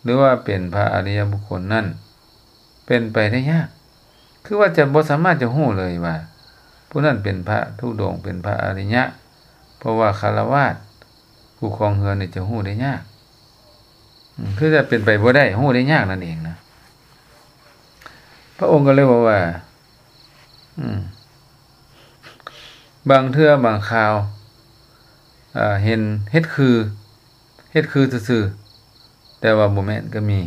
ຫຼືວ່າເປັນພະອະລິຍະບຸກຄົນນັ້ນ ເປັນໄປໄດ້ຍາກ. ຄືວ່າຈະບໍ່ສາມາດຈະຮູ້ເລີຍວ່າ ຜູ້ນັ້ນເປັນພະທຸດົງ, ເປັນພະອະລິຍະ, ເພາະວ່າຄາລະວາດ ຜູ້ຄອງເຮືອນນີ້ຈະຮູ້ໄດ້ຍາກ. ອືມ ຄືຈະເປັນໄປບໍ່ໄດ້, ຮູ້ໄດ້ຍາກນັ້ນເອງນະ. ພະອົງກໍເລີຍບອກວ່າ, ອືມ, ບາງເທື່ອບາງຄາວ, ເອີ, ເຫັນເຮັດຄື, ເຮັດຄືຊື່ໆ, ແຕ່ວ່າບໍ່ແມ່ນກໍມີ.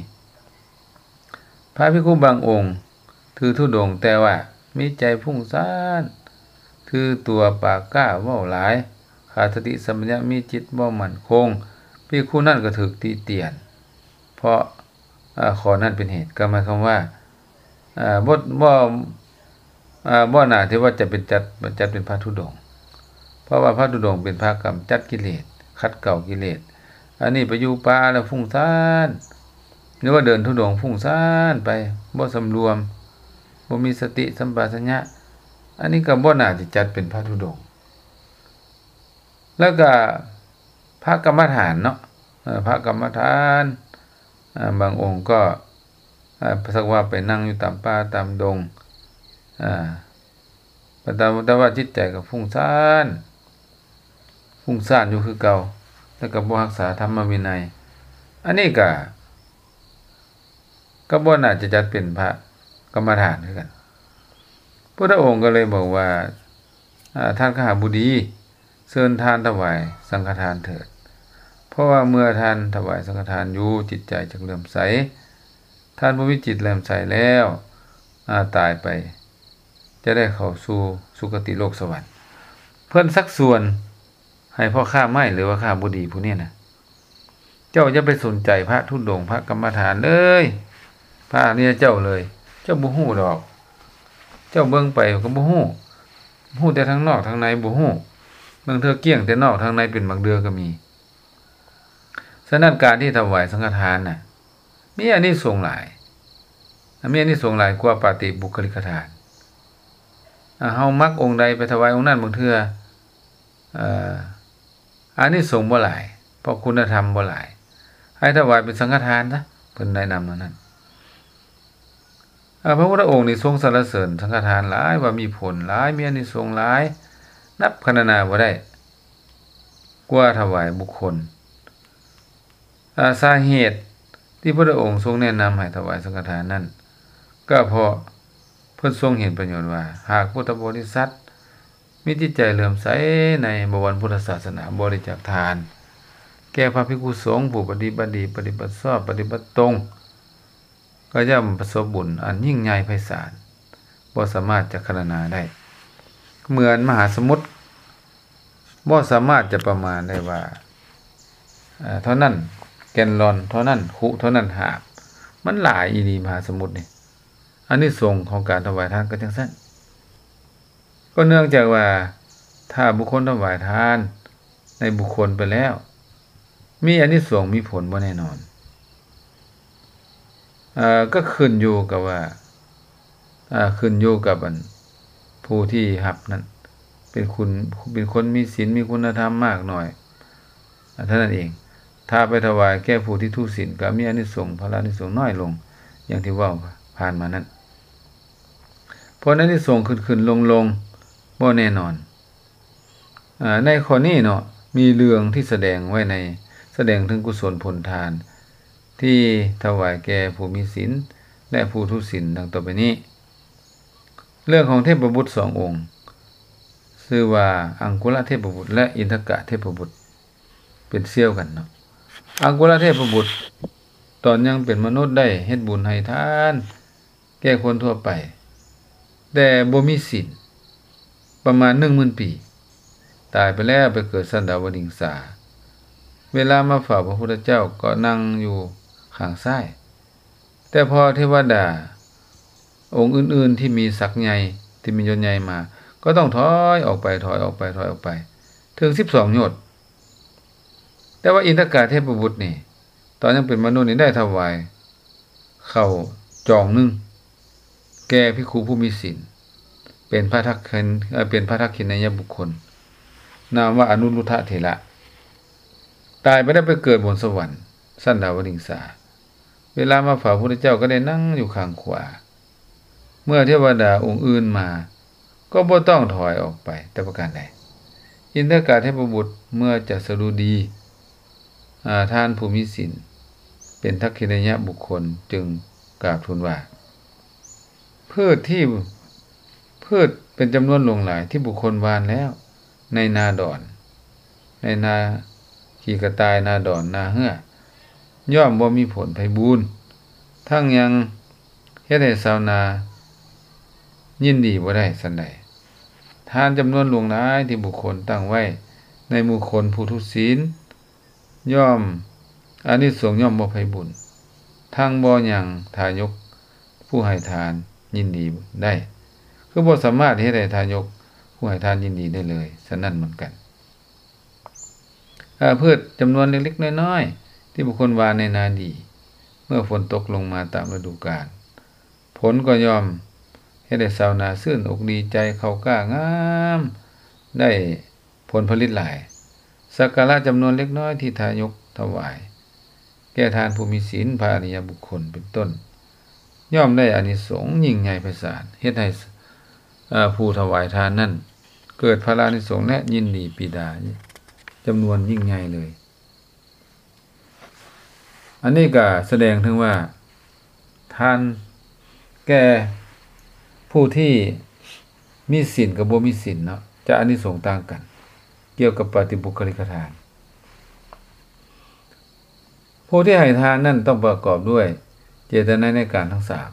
ພະພິກຂຸບາງອົງຖືທຸດົງ, ແຕ່ວ່າມີໃຈຟຸ້ງສ້ານ, ຖືຕົວປາກກ້າ, ເວົ້າຫຼາຍ, ຂາດສະຕິສຳປະຊັນຍະ ມີຈິດບໍ່ໝັ້ນຄົງ, ພິກຂຸນັ້ນກໍຖືກຕິຕຽນ ເພາະ ເອີ ຂໍ້ນັ້ນເປັນເຫດ. ກໍໝາຍຄວາມວ່າ ເອີ ບໍ່ ບໍ່ ເອີ ບໍ່ໜ້າທີ່ວ່າຈະເປັນຈັດ ຈັດເປັນພະທຸດົງ, ເພາະວ່າພະທຸດົງເປັນພະກຳຈັດກິເລດ, ຂັດເກົາກິເລດ. ອັນນີ້ໄປຢູ່ປ່າແລ້ວຟຸ້ງຊານ, ຫຼືວ່າເດີນທຸດົງຟຸ້ງຊານໄປ, ບໍ່ສຳລວມ, ບໍ່ມີສະຕິສຳປະຊັນຍະ, ອັນນີ້ກໍບໍ່ໜ້າທີ່ຈັດເປັນພະທຸດົງ. ແລ້ວກໍພະກຳມະຖານເນາະ, ເອີ ພະກຳມະຖານ ເອີ ບາງອົງກໍ ເອີ ສັກວ່າໄປນັ່ງຢູ່ຕາມປ່າຕາມດົງ, ເອີ ແຕ່ ແຕ່ວ່າຈິດໃຈກໍຟຸ້ງຊານ, ຟຸ້ງຊານຢູ່ຄືເກົ່າ, ແລ້ວກໍບໍ່ຮັກສາທຳມະວິໄນ. ອັນນີ້ກໍ ກໍບໍ່ໜ້າຈະຈັດເປັນພະກຳມະຖານຄືກັນ. ພຸດທະອົງກໍເລີຍບອກວ່າ ອາ ທ່ານຄະຫະບໍດີ, ເຊີນທ່ານຖວາຍສັງຄະທານເຖີດ, ເພາະວ່າເມື່ອທ່ານຖວາຍສັງຄະທານຢູ່, ຈິດໃຈຈະເຫຼື້ອມໃສ. ທ່ານຜູ້ມີຈິດເຫຼື້ອມໃສແລ້ວ, ອາ ຕາຍໄປ ຈະໄດ້ເຂົ້າສູ່ສຸຄະຕິໂລກສະຫວັນ. ເພິ່ນຊັກຊວນໃຫ້ພໍ່ຄ້າໄມ້ ຫຼືວ່າຄ້າບໍດີຜູ້ນີ້ນະ, ເຈົ້າຢ່າໄປສົນໃຈພະທຸດົງ, ພະກຳມະຖານເລີຍ, ພະອະລິຍະເຈົ້າເລີຍ, ເຈົ້າບໍ່ຮູ້ດອກ. ເຈົ້າເບິ່ງໄປກໍບໍ່ຮູ້, ຮູ້ແຕ່ທາງນອກ, ທາງໃນບໍ່ຮູ້. ບາງເທື່ອກ້ຽງແຕ່ນອກ, ທາງໃນເປັນບາງເທື່ອກໍມີ. ສະນັ້ນ ການທີ່ຖວາຍສັງຄະທານນະ ມີອານິສົງຫຼາຍ, ມີອານິສົງຫຼາຍກວ່າປາຕິບຸກຄະລິກກະທານ. ອາ ເຮົາມັກອົງໃດໄປຖວາຍອົງນັ້ນ, ບາງເທື່ອ ເອີ ອານິສົງບໍ່ຫຼາຍ, ເພາະຄຸນນະທຳບໍ່ຫຼາຍ, ໃຫ້ຖວາຍເປັນສັງຄະທານຊະ, ເພິ່ນແນະນຳແນວນັ້ນ. ອາ ພະພຸດທະອົງນີ້ຊົງສັນລະເສີນສັງຄະທານຫຼາຍ, ວ່າມີຜົນຫຼາຍ, ມີອານິສົງຫຼາຍ, ນັບຄະນະນາບໍ່ໄດ້. ກວ່າຖວາຍບຸກຄົນ. ອາ ສາເຫດທີ່ພະພຸດທະອົງຊົງແນະນຳໃຫ້ຖວາຍສັງຄະທານນັ້ນ ກໍເພາະເພິ່ນຊົງເຫັນປະໂຫຍດວ່າ ຫາກພຸດທະບໍລິສັດມີຈິດໃຈເຫຼື້ອມໃສໃນບະວອນພຸດທະສາສະໜາ, ບໍລິຈາກທານແກ່ພະພິກຂຸສົງຜູ້ປະຕິບັດດີ, ປະຕິບັດຊອບ, ປະຕິບັດຕົງ, ກໍຍ່ອມປະສົບບຸນອັນຍິ່ງໃຫຍ່ໄພສານ, ບໍ່ສາມາດຈະຄະນະນາໄດ້. ເໝືອນມະຫາສະໝຸດ ບໍ່ສາມາດຈະປະມານໄດ້ວ່າ ເອີ ເທົ່ານັ້ນແກນລອນ, ເທົ່ານັ້ນຄຸ, ເທົ່ານັ້ນຫາບ. ມັນຫຼາຍອີ່ຫຼີມະຫາສະໝຸດນີ້. ອານິສົງຂອງການຖວາຍທານກໍຈັ່ງຊັ້ນ. ກໍເນື່ອງຈາກວ່າ ຖ້າບຸກຄົນຖວາຍທານໃນບຸກຄົນໄປແລ້ວ ມີອານິສົງມີຜົນບໍ່ແນ່ນອນ. ເອີ ກໍຂຶ້ນຢູ່ກັບວ່າ ເອີ ຂຶ້ນຢູ່ກັບອັນຜູ້ທີ່ຮັບນັ້ນ ເປັນຄຸນ ເປັນຄົນມີສິນ ມີຄຸນນະທຳມາກໜ້ອຍ ເທົ່ານັ້ນເອງ. ຖ້າໄປຖວາຍແກ່ຜູ້ທີ່ທຸສິນ ກໍມີອານິສົງ ພະລາອານິສົງນ້ອຍລົງ ຢ່າງທີ່ເວົ້າຜ່ານມານັ້ນ. ເພາະອານິສົງຂຶ້ນໆລົງໆ ບໍ່ແນ່ນອນ. ອາ ໃນຂໍ້ນີ້ເນາະ ມີເລື່ອງທີ່ສະແດງໄວ້ໃນ ສະແດງເຖິງກຸສົນຜົນທານ ທີ່ຖວາຍແກ່ຜູ້ມີສິນ ແລະ ຜູ້ທຸສິນ ດັ່ງຕໍ່ໄປນີ້. ເລື່ອງຂອງເທບປະບຸດສອງອົງ ຊື່ວ່າ ອັງຄຸລະເທບປະບຸດ ແລະ ອິນທະກະເທບປະບຸດ ເປັນສ່ຽວກັນເນາະ. ອັງຄຸລະເທບປະບຸດ ຕອນຍັງເປັນມະນຸດ ໄດ້ເຮັດບຸນໃຫ້ທານ ແກ່ຄົນທົ່ວໄປ ແຕ່ບໍ່ມີສິນ ປະມານໜຶ່ງໝື່ນປີ, ຕາຍໄປແລ້ວໄປເກີດຊັ້ນດາວະດິງສາ. ເວລາມາເຝົ້າພະພຸດທະເຈົ້າກໍນັ່ງຢູ່ຂ້າງຊ້າຍ, ແຕ່ພໍເທວະດາອົງອື່ນໆທີ່ມີສັກໃຫຍ່ ທີ່ມີຍົດໃຫຍ່ມາ ກໍຕ້ອງຖອຍອອກໄປ, ຖອຍອອກໄປ, ຖອຍອອກໄປ ເຖິງສິບສອງໂຍດ. ແຕ່ວ່າອິນທະກະເທບປະບຸດນີ້ ຕອນຍັງເປັນມະນຸດນີ້ໄດ້ຖວາຍເຂົ້າຈອງໜຶ່ງແກ່ພິກຂຸຜູ້ມີສິນ ເປັນພະທັກຂິນ ເອີ ເປັນພະທັກຂິນາຍະບຸກຄົນ ນາມວ່າອະນຸລຸດທະເຖລະ. ຕາຍໄປແລ້ວໄປເກີດບົນສະຫວັນຊັ້ນດາວະດິງສາ. ເວລາມາເຝົ້າພະພຸດທະເຈົ້າກໍໄດ້ນັ່ງຢູ່ຂ້າງຂວາ. ເມື່ອເທວະດາອົງອື່ນມາ ກໍບໍ່ຕ້ອງຖອຍອອກໄປແຕ່ປະການໃດ. ອິນທະກະເທບປະບຸດເມື່ອຈະສະດຸດີ ອາ ທ່ານຜູ້ມີສິນ ເປັນທັກຂິນາຍະບຸກຄົນ ຈຶ່ງກາບທູນວ່າ ພືດທີ່ ພືດເປັນຈຳນວນຫຼວງຫຼາຍທີ່ບຸກຄົນຫວ່ານແລ້ວ ໃນນາດອນ ໃນນາຂີ້ກະຕ່າຍ ນາດອນ ນາເຮື້ອ ຍ່ອມບໍ່ມີຜົນໄພບູນ, ທັງຍັງເຮັດໃຫ້ຊາວນາຍິນດີບໍ່ໄດ້ສັນໃດ. ທານຈຳນວນຫຼວງຫຼາຍທີ່ບຸກຄົນຕັ້ງໄວ້ ໃນໝູ່ຄົນຜູ້ທຸສິນ ຍ່ອມ ອານິສົງຍ່ອມມອບໃຫ້ບຸນ ທັງບໍ່ຍັງທາຍົກຜູ້ໃຫ້ທານຍິນດີໄດ້ ຄືບໍ່ສາມາດເຮັດໃຫ້ທາຍົກຜູ້ໃຫ້ທານຍິນດີໄດ້ເລີຍ. ສະນັ້ນເໝືອນກັນ ອາ ພືດຈຳນວນເລັກໆນ້ອຍໆ ທີ່ບຸກຄົນຫວ່ານໃນນາດີ ເມື່ອຝົນຕົກລົງມາຕາມລະດູການ ຜົນກໍຍ່ອມເຮັດໃຫ້ຊາວນາຊື່ນອົກດີໃຈ ເຂົ້າກ້າງາມ ໄດ້ຜົນຜະລິດຫຼາຍ. ສັກກາລະຈຳນວນເລັກນ້ອຍທີ່ທາຍົກຖວາຍແກ່ທ່ານຜູ້ມີສິນ, ພະອະລິຍະບຸກຄົນເປັນຕົ້ນ ຍ່ອມໄດ້ອານິສົງຍິ່ງໃຫຍ່ໄພສານ ເຮັດໃຫ້ ເອີ ຜູ້ຖວາຍທານນັ້ນເກີດພະລາອານິສົງ ແລະ ຍິນດີປີດາຈຳນວນຍິ່ງໃຫຍ່ເລີຍ. ອັນນີ້ກໍສະແດງເຖິງວ່າ ທານແກ່ຜູ້ທີ່ມີສິນກັບບໍ່ມີສິນເນາະ ຈະອານິສົງຕ່າງກັນ ກ່ຽວກັບປະຕິບຸກຄະລິກະທານ. ຜູ້ທີ່ໃຫ້ທານນັ້ນຕ້ອງປະກອບດ້ວຍເຈດຕະນາໃນການທັງສາມ.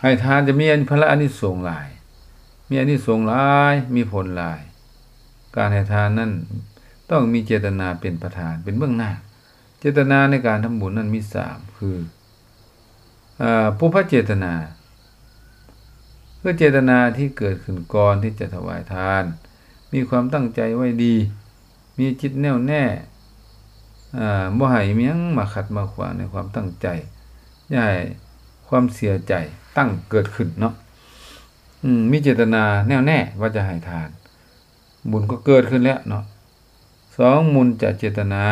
ໃຫ້ທານຈະມີພະລາອານິສົງຫຼາຍ, ມີອານິສົງຫຼາຍ, ມີຜົນຫຼາຍ. ການໃຫ້ທານນັ້ນຕ້ອງມີເຈດຕະນາເປັນປະທານ, ເປັນເບື້ອງໜ້າ. ເຈດຕະນາໃນການທຳບຸນນັ້ນມີສາມ ຄື ອາ ປຸບພະເຈດຕະນາ ຄືເຈດຕະນາທີ່ເກີດຂຶ້ນກ່ອນທີ່ຈະຖວາຍທານ, ມີຄວາມຕັ້ງໃຈໄວ້ດີ, ມີຈິດແນ່ວແນ່ ອາ ບໍ່ໃຫ້ມີຫຍັງມາຂັດມາຂວາງໃນຄວາມຕັ້ງໃຈ, ຢ່າໃຫ້ຄວາມເສຍໃຈຕັ້ງເກີດຂຶ້ນເນາະ. ອືມ ມີເຈດຕະນາແນ່ວແນ່ວ່າຈະໃຫ້ທານ, ບຸນກໍເກີດຂຶ້ນແລ້ວເນາະ. ສອງ ມຸນຈະເຈດຕະນາ,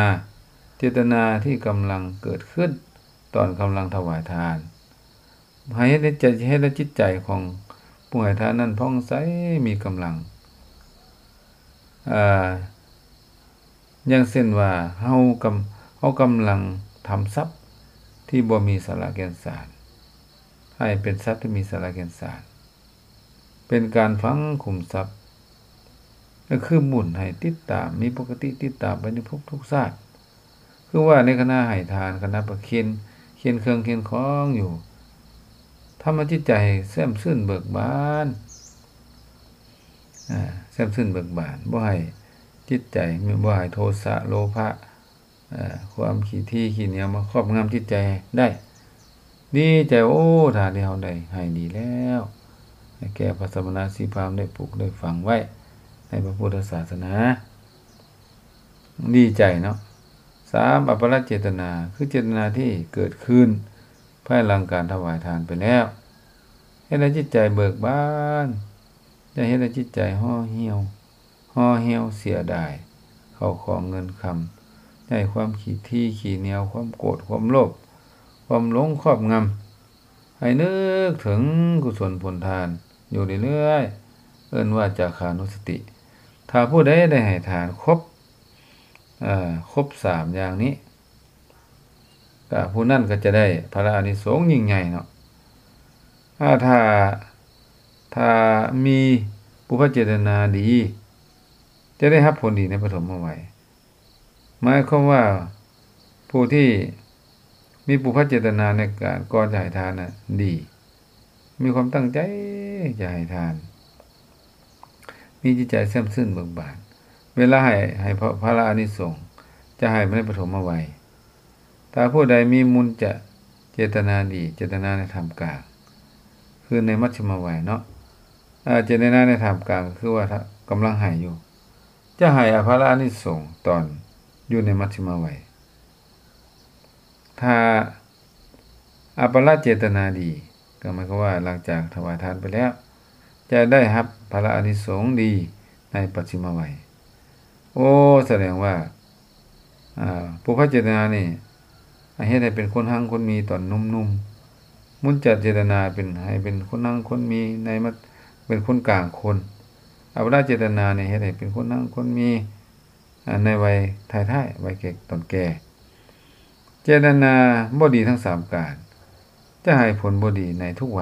ເຈດຕະນາທີ່ກຳລັງເກີດຂຶ້ນຕອນກຳລັງຖວາຍທານ. ໃຫ້ເຮັດໃນໃຈ, ເຮັດໃຫ້ຈິດໃຈຂອງຜູ້ໃຫ້ທານນັ້ນຜ່ອງໃສ, ມີກຳລັງ. ອາ ຢ່າງເຊັ່ນວ່າ ເຮົາກຳ, ເຮົາກຳລັງທຳຊັບທີ່ບໍ່ມີສາລະແກ່ນສານ ໃຫ້ເປັນຊັບທີ່ມີສາລະແກ່ນສານ. ເປັນການຝັງຂຸມຊັບ ກໍຄືບຸນໃຫ້ຕິດຕາມ, ມີປົກກະຕິຕິດຕາມໄປໃນທຸກໆຊາດ. ຄືວ່າໃນຂະນະໃຫ້ທານ, ຂະນະປະເຄນ, ເຄນເຄື່ອງເຄນຂອງຢູ່, ທຳໃຫ້ຈິດໃຈແຊ່ມຊື່ນເບີກບານ, ອາ, ແຊ່ມຊື່ນເບີກບານ, ບໍ່ໃຫ້ຈິດໃຈ, ບໍ່ໃຫ້ໂທສະ, ໂລພະ, ເອີ ຄວາມຂີ້ຖີ່ຂີ້ໜຽວມາຄອບງຳຈິດໃຈໄດ້. ດີໃຈ, ໂອ້ ທານທີ່ເຮົາໄດ້ໃຫ້ດີແລ້ວ, ໃຫ້ແກ່ພະສະມະນະຊີພາມໄດ້ປູກໄດ້ຝັງໄວ້ໃນພະພຸດທະສາສະໜາ. ດີໃຈເນາະ. ສາມ ອັບປະລະເຈດຕະນາ, ຄືເຈດຕະນາທີ່ເກີດຂຶ້ນພາຍຫຼັງການຖວາຍທານໄປແລ້ວ, ເຮັດໃຫ້ຈິດໃຈເບີກບານ, ຢ່າເຮັດໃຫ້ຈິດໃຈຫໍ່ຫ່ຽວ. ຫໍ່ຫ່ຽວເສຍດາຍເຂົ້າຂອງເງິນຄຳ, ຢ່າໃຫ້ຄວາມຂີ້ຖີ່ຂີ້ໜຽວ, ຄວາມໂກດ, ຄວາມໂລບ, ຄວາມຫຼົງຄອບງຳ, ໃຫ້ນຶກເຖິງກຸສົນຜົນທານຢູ່ເລື້ອຍໆ, ເອີ້ນວ່າຈາຄານຸສະຕິ. ຖ້າຜູ້ໃດໄດ້ໃຫ້ທານຄົບ, ເອີ, ຄົບສາມຢ່າງນີ້, ກະຜູ້ນັ້ນກໍຈະໄດ້ພະລາອານິສົງຍິ່ງໃຫຍ່ເນາະ. ອາ ຖ້າ, ຖ້າມີປຸບພະເຈດຕະນາດີ, ຈະໄດ້ຮັບຜົນດີໃນປະຖົມມະໄວ. ໝາຍຄວາມວ່າ ຜູ້ທີ່ມີປຸບພະເຈດຕະນາໃນການກ່ອນຈະໃຫ້ທານນະດີ, ມີຄວາມຕັ້ງໃຈຈະໃຫ້ທານ, ມີຈິດໃຈແຊ່ມຊື່ນເບີກບານ, ເວລາໃຫ້, ໃຫ້ພະ, ພະລາອານິສົງຈະໃຫ້ໃນປະຖົມມະໄວ. ຖ້າຜູ້ໃດມີມຸນຈະເຈດຕະນາດີ, ເຈດຕະນາໃນທ່າມກາງ, ຄືໃນມັດຊິມະໄວເນາະ, ອາ, ເຈດຕະນາໃນທ່າມກາງ ກໍຄືວ່າ ກຳລັງໃຫ້ຢູ່, ຈະໃຫ້ອະພະລາອານິສົງຕອນຢູ່ໃນມັດຊິມະໄວ. ຖ້າອາປະລະເຈດຕະນາດີ, ກໍໝາຍຄວາມວ່າຫຼັງຈາກຖວາຍທານໄປແລ້ວ, ຈະໄດ້ຮັບພະລະອານິສົງດີໃນປັດຊິມະໄວ. ໂອ້ ສະແດງວ່າ ອາ ປຸບພະເຈດຕະນານີ້ ເຮັດໃຫ້ເປັນຄົນຮັ່ງຄົນມີຕອນໜຸ່ມໆ, ມຸນຈະເຈດຕະນາເປັນ, ໃຫ້ເປັນຄົນຮັ່ງຄົນມີໃນມາ, ເປັນຄົນກາງຄົນ, ອາປະລະເຈດຕະນານີ້ ເຮັດໃຫ້ເປັນຄົນຮັ່ງຄົນມີ ອາ ໃນໄວທ້າຍໆ, ໄວແກ່, ຕອນແກ່. ເຈດຕະນາບໍ່ດີທັງສາມການ ຈະໃຫ້ຜົນບໍ່ດີໃນທຸກໄວ.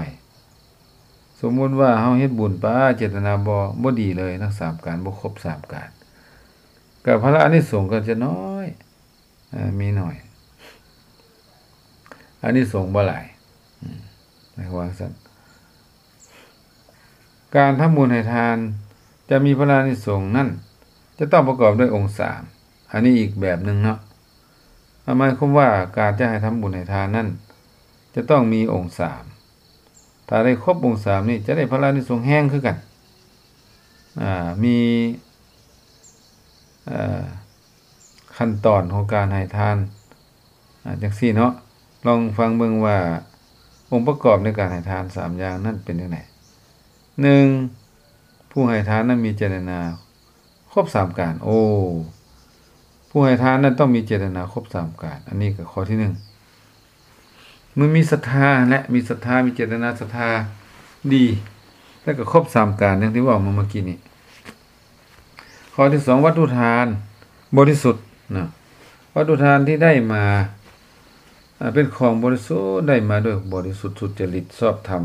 ສົມມຸດວ່າເຮົາເຮັດບຸນປາ ເຈດຕະນາບໍ່, ບໍ່ດີເລີຍທັງສາມການ, ບໍ່ຄົບສາມການ, ກໍພະລາອານິສົງກໍຈະນ້ອຍ, ເອີ, ມີໜ້ອຍ, ອານິສົງບໍ່ຫຼາຍ, ອາ, ໃນຄວາມຊັ້ນ. ການທຳບຸນໃຫ້ທານຈະມີພະລາອານິສົງນັ້ນ ຈະຕ້ອງປະກອບດ້ວຍອົງສາມ. ອັນນີ້ອີກແບບໜຶ່ງເນາະ. ໝາຍຄວາມວ່າການຈະໃຫ້ທຳບຸນໃຫ້ທານນັ້ນ ຈະຕ້ອງມີອົງສາມ. ຖ້າໄດ້ຄົບອົງສາມນີ້ ຈະໄດ້ພະລານິສົງແຮງຄືກັນ. ອາ ມີ ເອີ ຂັ້ນຕອນຂອງການໃຫ້ທານ ອາ ຈັ່ງຊີ້ເນາະ. ລອງຟັງເບິ່ງວ່າ ອົງປະກອບໃນການໃຫ້ທານສາມຢ່າງນັ້ນເປັນຈັ່ງໃດ. ໜຶ່ງ ຜູ້ໃຫ້ທານນັ້ນມີເຈດຕະນາຄົບສາມການ. ໂອ້ ຜູ້ໃຫ້ທານນັ້ນຕ້ອງມີເຈດຕະນາຄົບສາມການ. ອັນນີ້ກໍຂໍ້ທີໜຶ່ງ. ມັນມີສັດທາແຫຼະ ມີສັດທາ ມີເຈດຕະນາສັດທາດີ ແລ້ວກໍຄົບສາມການ ຢ່າງທີ່ເວົ້າມາເມື່ອກີ້ນີ້. ຂໍ້ທີສອງ ວັດຖຸທານບໍລິສຸດນະ. ວັດຖຸທານທີ່ໄດ້ມາ ອາ ເປັນຂອງບໍລິສຸດ ໄດ້ມາດ້ວຍບໍລິສຸດ ສຸດຈະລິດ ຊອບທຳ,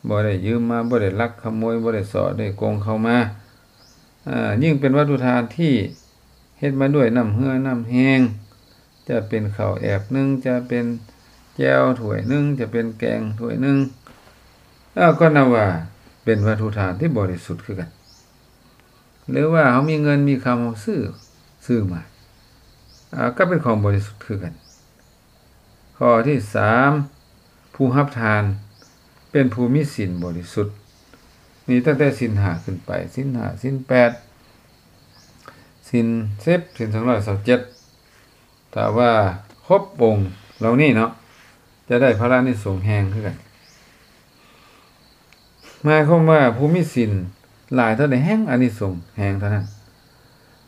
ບໍ່ໄດ້ຢືມມາ ບໍ່ໄດ້ລັກຂະໂມຍ ບໍ່ໄດ້ສໍ້ໄດ້ໂກງເຂົ້າມາ. ອາ ຍິ່ງເປັນວັດຖຸທານທີ່ເຮັດມາດ້ວຍນ້ຳເຫື່ອນ້ຳແຮງ ຈະເປັນເຂົ້າແອບໜຶ່ງ ຈະເປັນແຈ່ວຖ້ວຍໜຶ່ງ ຈະເປັນແກງຖ້ວຍໜຶ່ງ ເອີ ກໍນັບວ່າເປັນວັດຖຸທານທີ່ບໍລິສຸດຄືກັນ. ຫຼືວ່າເຮົາມີເງິນມີຄຳ ເຮົາຊື້ ຊື້ມາ ອາ ກໍເປັນຂອງບໍລິສຸດຄືກັນ. ຂໍ້ທີສາມ ຜູ້ຮັບທານເປັນຜູ້ມີສິນບໍລິສຸດ. ນີ້ຕັ້ງແຕ່ສິນຫ້າຂຶ້ນໄປ ສິນຫ້າ ສິນແປດ ສິນສິບ ສິນສອງຮ້ອຍຊາວເຈັດ ຖ້າວ່າຄົບອົງເຫຼົ່ານີ້ເນາະ ຈະໄດ້ພະລານິສົງແຮງຄືກັນ. ໝາຍຄວາມວ່າຜູ້ມີສິນຫຼາຍເທົ່າໃດ ແຮງອານິສົງແຮງເທົ່ານັ້ນ.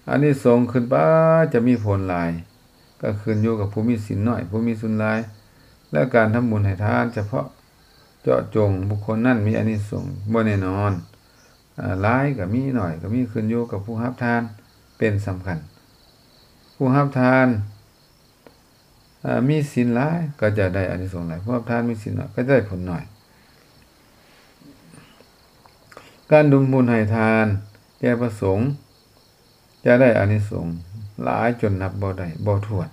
ອານິສົງຂຶ້ນໄປຈະມີຜົນຫຼາຍ ກໍຂຶ້ນຢູ່ກັບຜູ້ມີສິນໜ້ອຍ ຜູ້ມີສິນຫຼາຍ ແລະ ການທຳບຸນໃຫ້ທານສະເພາະເຈາະຈົງບຸກຄົນນັ້ນມີອານິສົງບໍ່ແນ່ນອນ. ອາ ຫຼາຍກໍມີ ໜ້ອຍກໍມີ ຂຶ້ນຢູ່ກັບຜູ້ຮັບທານເປັນສຳຄັນ. ຜູ້ຮັບທານ ອາ ມີສິນຫຼາຍກໍຈະໄດ້ອານິສົງຫຼາຍ, ຜູ້ຮັບທານມີສິນໜ້ອຍກໍຈະໄດ້ຜົນໜ້ອຍ. ການທຳບຸນໃຫ້ທານແກ່ພະສົງ ຈະໄດ້ອານິສົງຫຼາຍຈົນນັບບໍ່ໄດ້ບໍ່ຖ້ວນ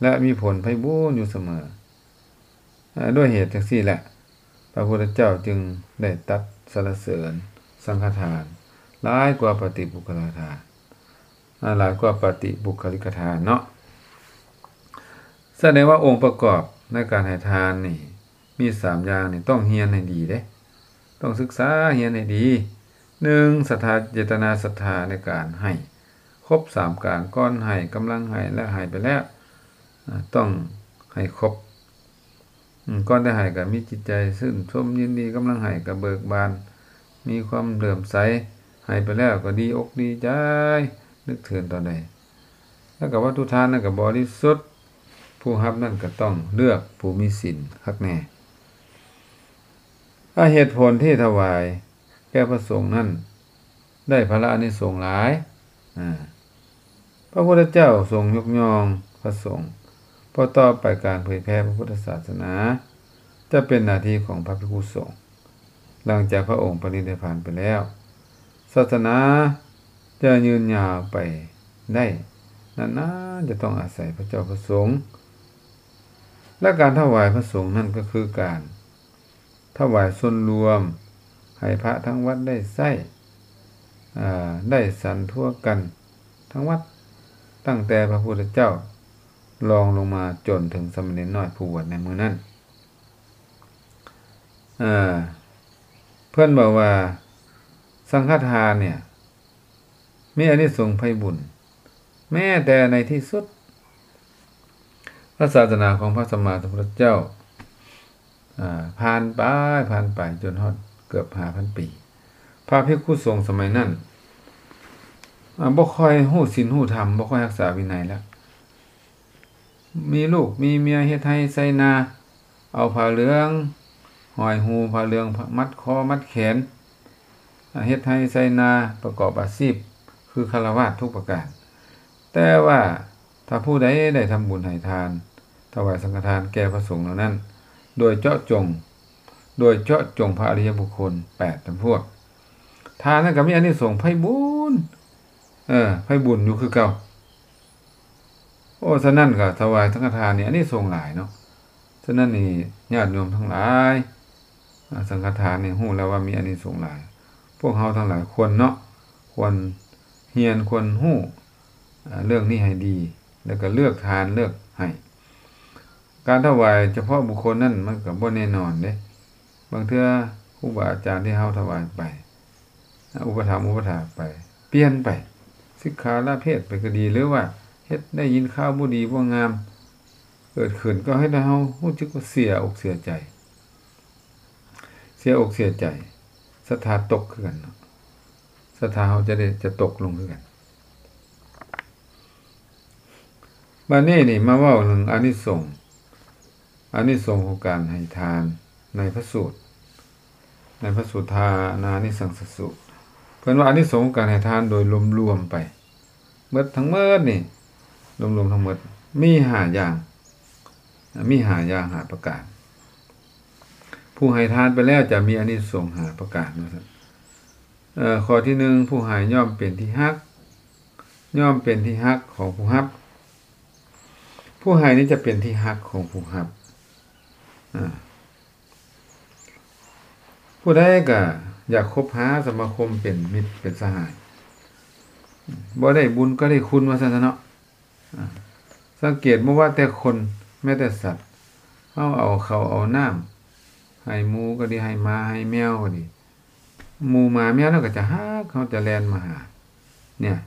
ແລະ ມີຜົນໄພບູນຢູ່ສະເໝີ. ອາ ດ້ວຍເຫດຈັ່ງຊີ້ແຫຼະ ພະພຸດທະເຈົ້າຈຶ່ງໄດ້ຕັດສັນລະເສີນສັງຄະທານຫຼາຍກວ່າປະຕິປຸກຄະລະທານ ອາ ຫຼາຍກວ່າປະຕິບຸກຄະລິກທານເນາະ. ສະແດງວ່າອົງປະກອບໃນການໃຫ້ທານນີ້ ມີສາມຢ່າງນີ້ ຕ້ອງຮຽນໃຫ້ດີເດ້ ຕ້ອງສຶກສາຮຽນໃຫ້ດີ. ໜຶ່ງ ສັດທາ ເຈດຕະນາສັດທາໃນການໃຫ້ຄົບສາມການ ກ່ອນໃຫ້ ກຳລັງໃຫ້ ແລະ ໃຫ້ໄປແລ້ວ ອາ ຕ້ອງໃຫ້ຄົບ. ອືມ ກ່ອນຈະໃຫ້ກໍມີຈິດໃຈຊື່ນຊົມຍິນດີ, ກຳລັງໃຫ້ກໍເບີກບານ ມີຄວາມເຫຼື້ອມໃສ, ໃຫ້ໄປແລ້ວກໍດີອົກດີໃຈ ນຶກເຖິງຕອນໃດ. ແລ້ວກໍວັດຖຸທານນັ້ນກໍບໍລິສຸດ, ຜູ້ຮັບນັ້ນກໍຕ້ອງເລືອກຜູ້ມີສິນຄັກແນ່. ອາ ເຫດຜົນທີ່ຖວາຍແກ່ພະສົງນັ້ນ ໄດ້ພະລາອານິສົງຫຼາຍ. ອາ ພະພຸດທະເຈົ້າຊົງຍົກຍ້ອງພະສົງ, ເພາະຕໍ່ໄປການເຜີຍແຜ່ພະພຸດທະສາສະໜາຈະເປັນໜ້າທີ່ຂອງພະພິກຂຸສົງ. ຫຼັງຈາກພະອົງປະນິດນິບພານໄປແລ້ວ, ສາສະໜາຈະຍືນຍາວໄປໄດ້ນານໆ ຈະຕ້ອງອາໄສພະເຈົ້າພະສົງ. ແລະ ການຖວາຍພະສົງນັ້ນກໍຄືການ ຖວາຍສ່ວນລວມ ໃຫ້ພະທັງວັດໄດ້ໃຊ້ ອາ ໄດ້ສັນທົ່ວກັນທັງວັດ, ຕັ້ງແຕ່ພະພຸດທະເຈົ້າລອງລົງມາຈົນເຖິງສາມະເນນນ້ອຍຜູ້ບວດໃນມື້ນັ້ນ. ອາ ເພິ່ນບອກວ່າສັງຄະທານເນ່ຍ ມີອານິສົງໄພບຸນ ແມ້ແຕ່ໃນທີ່ສຸດ ພະສາສະໜາຂອງພະສຳມາສຳພຸດທະເຈົ້າ ອາ ຜ່ານໄປ ຜ່ານໄປຈົນຮອດເກືອບຫ້າພັນປີ. ພະພິກຂຸສົງສະໄໝນັ້ນ ອາ ບໍ່ຄ່ອຍຮູ້ສິນຮູ້ທຳ, ບໍ່ຄ່ອຍຮັກສາວິໄນແລ້ວ. ມີລູກມີເມຍ ເຮັດໄຮ່ໄຖນາ, ເອົາຜ້າເຫຼືອງຫ້ອຍຫູ, ຜ້າເຫຼືອງມັດຄໍມັດແຂນ, ເຮັດໄຮ່ໄຖນາ, ປະກອບອາຊີບຄືຄາລະວາດທຸກປະການ. ແຕ່ວ່າຖ້າຜູ້ໃດໄດ້ທຳບຸນໃຫ້ທານ, ຖວາຍສັງຄະທານແກ່ພະສົງເຫຼົ່ານັ້ນ ໂດຍເຈາະຈົງ, ໂດຍເຈາະຈົງພະອະລິຍະບຸກຄົນແປດຈຳພວກ, ທ່ານນັ້ນກໍມີອານິສົງໄພບູນ, ເອີ, ໄພບຸນຢູ່ຄືເກົ່າ. ໂອ້ ສະນັ້ນກໍຖວາຍສັງຄະທານນີ້ອານິສົງຫຼາຍເນາະ. ສະນັ້ນນີ້ ຍາດໂຍມທັງຫຼາຍ, ອາ, ສັງຄະທານນີ້ຮູ້ແລ້ວວ່າມີອານິສົງຫຼາຍ. ພວກເຮົາທັງຫຼາຍຄວນເນາະ, ຄວນ ຮຽນຄວນຮູ້ເລື່ອງນີ້ໃຫ້ດີ ແລ້ວກໍເລືອກທານເລືອກໃຫ້. ການຖວາຍສະເພາະບຸກຄົນນັ້ນມັນກໍບໍ່ແນ່ນອນເດ້. ບາງເທື່ອຄູບາອາຈານທີ່ເຮົາຖວາຍໄປ ອຸປະຖຳອຸປະຖາກໄປ ປ່ຽນໄປ ສິກຂາລາເພດໄປກໍດີ ຫຼືວ່າເຮັດໄດ້ຍິນຂ່າວບໍ່ດີບໍ່ງາມເກີດຂຶ້ນ ກໍເຮັດໃຫ້ເຮົາຮູ້ສຶກວ່າເສຍອົກເສຍໃຈ ເສຍອົກເສຍໃຈ ສັດທາຕົກຄືກັນເນາະ ສັດທາເຮົາຈະໄດ້ ຈະຕົກລົງຄືກັນ. ບາດນີ້ນີ້ມາເວົ້າເລື່ອງອານິສົງ ອານິສົງຂອງການໃຫ້ທານໃນພະສູດ ໃນພະສູດທານານິສັງສະສູດ ເພິ່ນວ່າອານິສົງຂອງການໃຫ້ທານໂດຍລວມໆໄປ ເບິດທັງໝົດນີ້ ລວມໆທັງໝົດມີຫ້າຢ່າງ ມີຫ້າຢ່າງ ຫ້າປະການ. ຜູ້ໃຫ້ທານໄປແລ້ວຈະມີອານິສົງຫ້າປະການວ່າຊັ້ນ. ເອີ ຂໍ້ທີໜຶ່ງ ຜູ້ໃຫ້ຍ່ອມເປັນທີ່ຮັກ ຍ່ອມເປັນທີ່ຮັກຂອງຜູ້ຮັບ. ຜູ້ໃຫ້ນີ້ຈະເປັນທີ່ຮັກຂອງຜູ້ຮັບ. ອາ ຜູ້ໃດກໍຢາກຄົບຫາສະມາຄົມເປັນມິດເປັນສະຫາຍ ບໍ່ໄດ້ບຸນກໍໄດ້ຄຸນວ່າຊັ້ນຊະເນາະ. ອາ ສັງເກດບໍ່ວ່າແຕ່ຄົນ ແມ້ແຕ່ສັດ ເຮົາເອົາເຂົ້າເອົານ້ຳໃຫ້ໝູກໍດີ ໃຫ້ໝາໃຫ້ແມວກໍດີ ໝູໝາແມວນັ້ນກໍຈະຮັກເຮົາ ຈະແລ່ນມາຫາ ເນຍ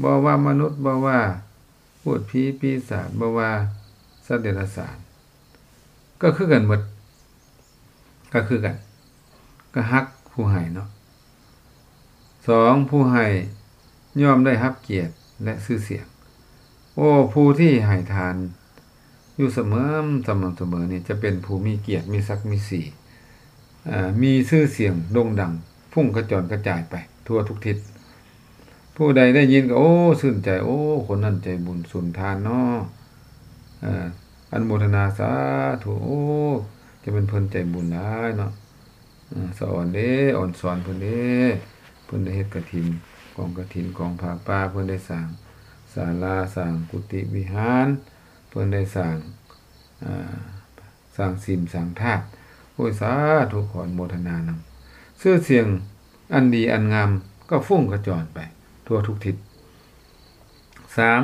ບໍ່ວ່າມະນຸດ ບໍ່ວ່າພູດຜີປີສາດ ບໍ່ວ່າສັດເດຍລະສານ ກໍຄືກັນໝົດ ກໍຄືກັນ ກໍຮັກຜູ້ໃຫ້ເນາະ. ສອງ ຜູ້ໃຫ້ຍ່ອມໄດ້ຮັບກຽດ ແລະ ຊື່ສຽງ. ໂອ້ ຜູ້ທີ່ໃຫ້ທານຢູ່ສະເໝີ ສະໝ່ຳສະເໝີນີ້ ຈະເປັນຜູ້ມີກຽດ ມີສັກມີສີ ເອີ ມີຊື່ສຽງໂດ່ງດັງ ຟຸ້ງຂະຈອນກະຈາຍໄປທົ່ວທຸກທິດ. ຜູ້ໃດໄດ້ຍິນກໍ ໂອ້ ຊື່ນໃຈ ໂອ້ ຄົນນັ້ນໃຈບຸນສຸນທານເນາະ ເອີ ອະນຸໂມທະນາສາທຸ ໂອ້ ຈະແມ່ນເພິ່ນໃຈບຸນຫຼາຍເນາະ ເອີ ສະອອນເດ້ ອອນສອນເພິ່ນເດ້ ເພິ່ນໄດ້ເຮັດກະຖິນ ກອງກະຖິນ ກອງຜ້າປ່າ ເພິ່ນໄດ້ສ້າງສາລາ ສ້າງກຸຕິວິຫານ ເພິ່ນໄດ້ສ້າງ ເອີ ສ້າງສິມສ້າງທາດ ໂອ້ຍ ສາທຸ ຂໍອະນຸໂມທະນານຳ. ຊື່ສຽງອັນດີອັນງາມກໍຟຸ້ງຂະຈອນໄປທົ່ວທຸກທິດ. ສາມ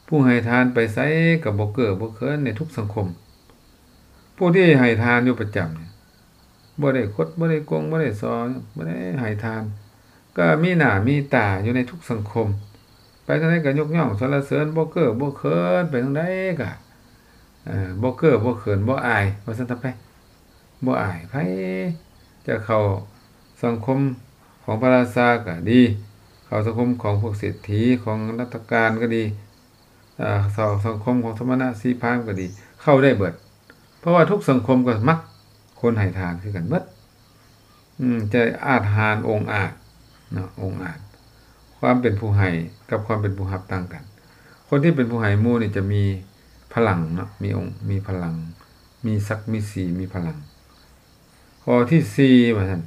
ຜູ້ໃຫ້ທານໄປໃສກໍບໍ່ເກີ້ບໍ່ເຂີນໃນທຸກສັງຄົມ. ຜູ້ທີ່ໃຫ້ທານຢູ່ປະຈຳນີ້ ບໍ່ໄດ້ຄົດ ບໍ່ໄດ້ໂກງ ບໍ່ໄດ້ສໍ້ ບໍ່ໄດ້ໃຫ້ທານ ກໍມີໜ້າມີຕາຢູ່ໃນທຸກສັງຄົມ ໄປທາງໃດກໍຍົກຍ້ອງສັນລະເສີນ ບໍ່ເກີ້ບໍ່ເຂີນ ໄປທາງໃດກໍ ເອີ ບໍ່ເກີ້ບໍ່ເຂີນ ບໍ່ອາຍ ວ່າຊັ້ນຊະໄປ ບໍ່ອາຍໃຜ. ຈະເຂົ້າສັງຄົມຂອງພະລາຊາກໍດີ ເຂົ້າສັງຄົມຂອງພວກເສດຖີ ຂອງລັດຖະການກໍດີ ເອີ ເຂົ້າສັງຄົມຂອງສະມະນະຊີພາມກໍດີ ເຂົ້າໄດ້ເບິດ ເພາະວ່າທຸກສັງຄົມກໍມັກຄົນໃຫ້ທານຄືກັນເບິດ. ອືມ ຈະອາດຫານອົງອາດເນາະ ອົງອາດ. ຄວາມເປັນຜູ້ໃຫ້ກັບຄວາມເປັນຜູ້ຮັບຕ່າງກັນ. ຄົນທີ່ເປັນຜູ້ໃຫ້ໝູ່ນີ້ຈະມີພະລັງເນາະ ມີອົງ ມີພະລັງ ມີສັກມີສີ ມີພະລັງ. ຂໍ້ທີສີ່ ວ່າຊັ້ນ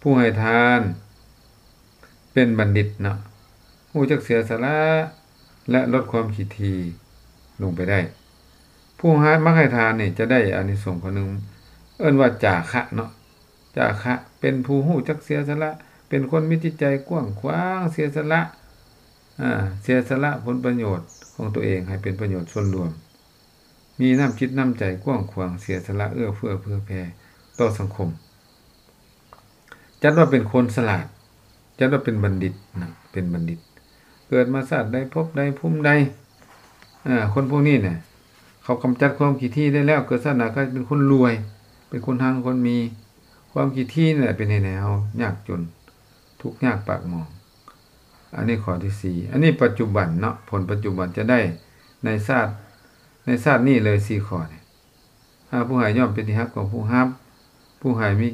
ຜູ້ໃຫ້ທານ ເປັນບັນດິດເນາະ ຮູ້ຈັກເສຍສະຫຼະ ແລະ ລົດຄວາມຂີ້ຖີ່ລົງໄປໄດ້. ຜູ້ໃຫ້ ມັກໃຫ້ທານນີ້ຈະໄດ້ອານິສົງຂໍ້ໜຶ່ງ ເອີ້ນວ່າຈາຄະເນາະ ຈາຄະ ເປັນຜູ້ຮູ້ຈັກເສຍສະຫຼະ ເປັນຄົນມີຈິດໃຈກວ້າງຂວາງ ເສຍສະຫຼະ ອາ ເສຍສະຫຼະຜົນປະໂຫຍດຂອງຕົວເອງໃຫ້ເປັນປະໂຫຍດສ່ວນລວມ. ມີນ້ຳຈິດນ້ຳໃຈກວ້າງຂວາງ ເສຍສະຫຼະເອື້ອເຟື້ອເຜື່ອແຜ່ຕໍ່ສັງຄົມ. ຈັດວ່າເປັນຄົນສະຫຼາດ ຈັດວ່າເປັນບັນດິດນະ ເປັນບັນດິດ ເກີດມາຊາດໃດພົບໃດພູມໃດ. ເອີ ຄົນພວກນີ້ນະ ເຂົາກຳຈັດຄວາມຂີ້ຖີ່ໄດ້ແລ້ວ ເກີດຊາດໜ້າກໍເປັນຄົນລວຍ ເປັນຄົນຮັ່ງຄົນມີ. ຄວາມຂີ້ຖີ່ນີ້ແຫຼະເປັນເຫດໃຫ້ເຮົາຍາກຈົນ ທຸກຍາກປາກໝອງ. ອັນນີ້ຂໍ້ທີສີ່ ອັນນີ້ປັດຈຸບັນເນາະ ຜົນປັດຈຸບັນຈະໄດ້ໃນຊາດ ໃນຊາດນີ້ເລີຍສີ່ຂໍ້ນີ້. ອາ ຜູ້ໃຫ້ຍ່ອມເປັນທີ່ຮັກຂອງຜູ້ຮັບ ຜູ້ໃຫ້ມີ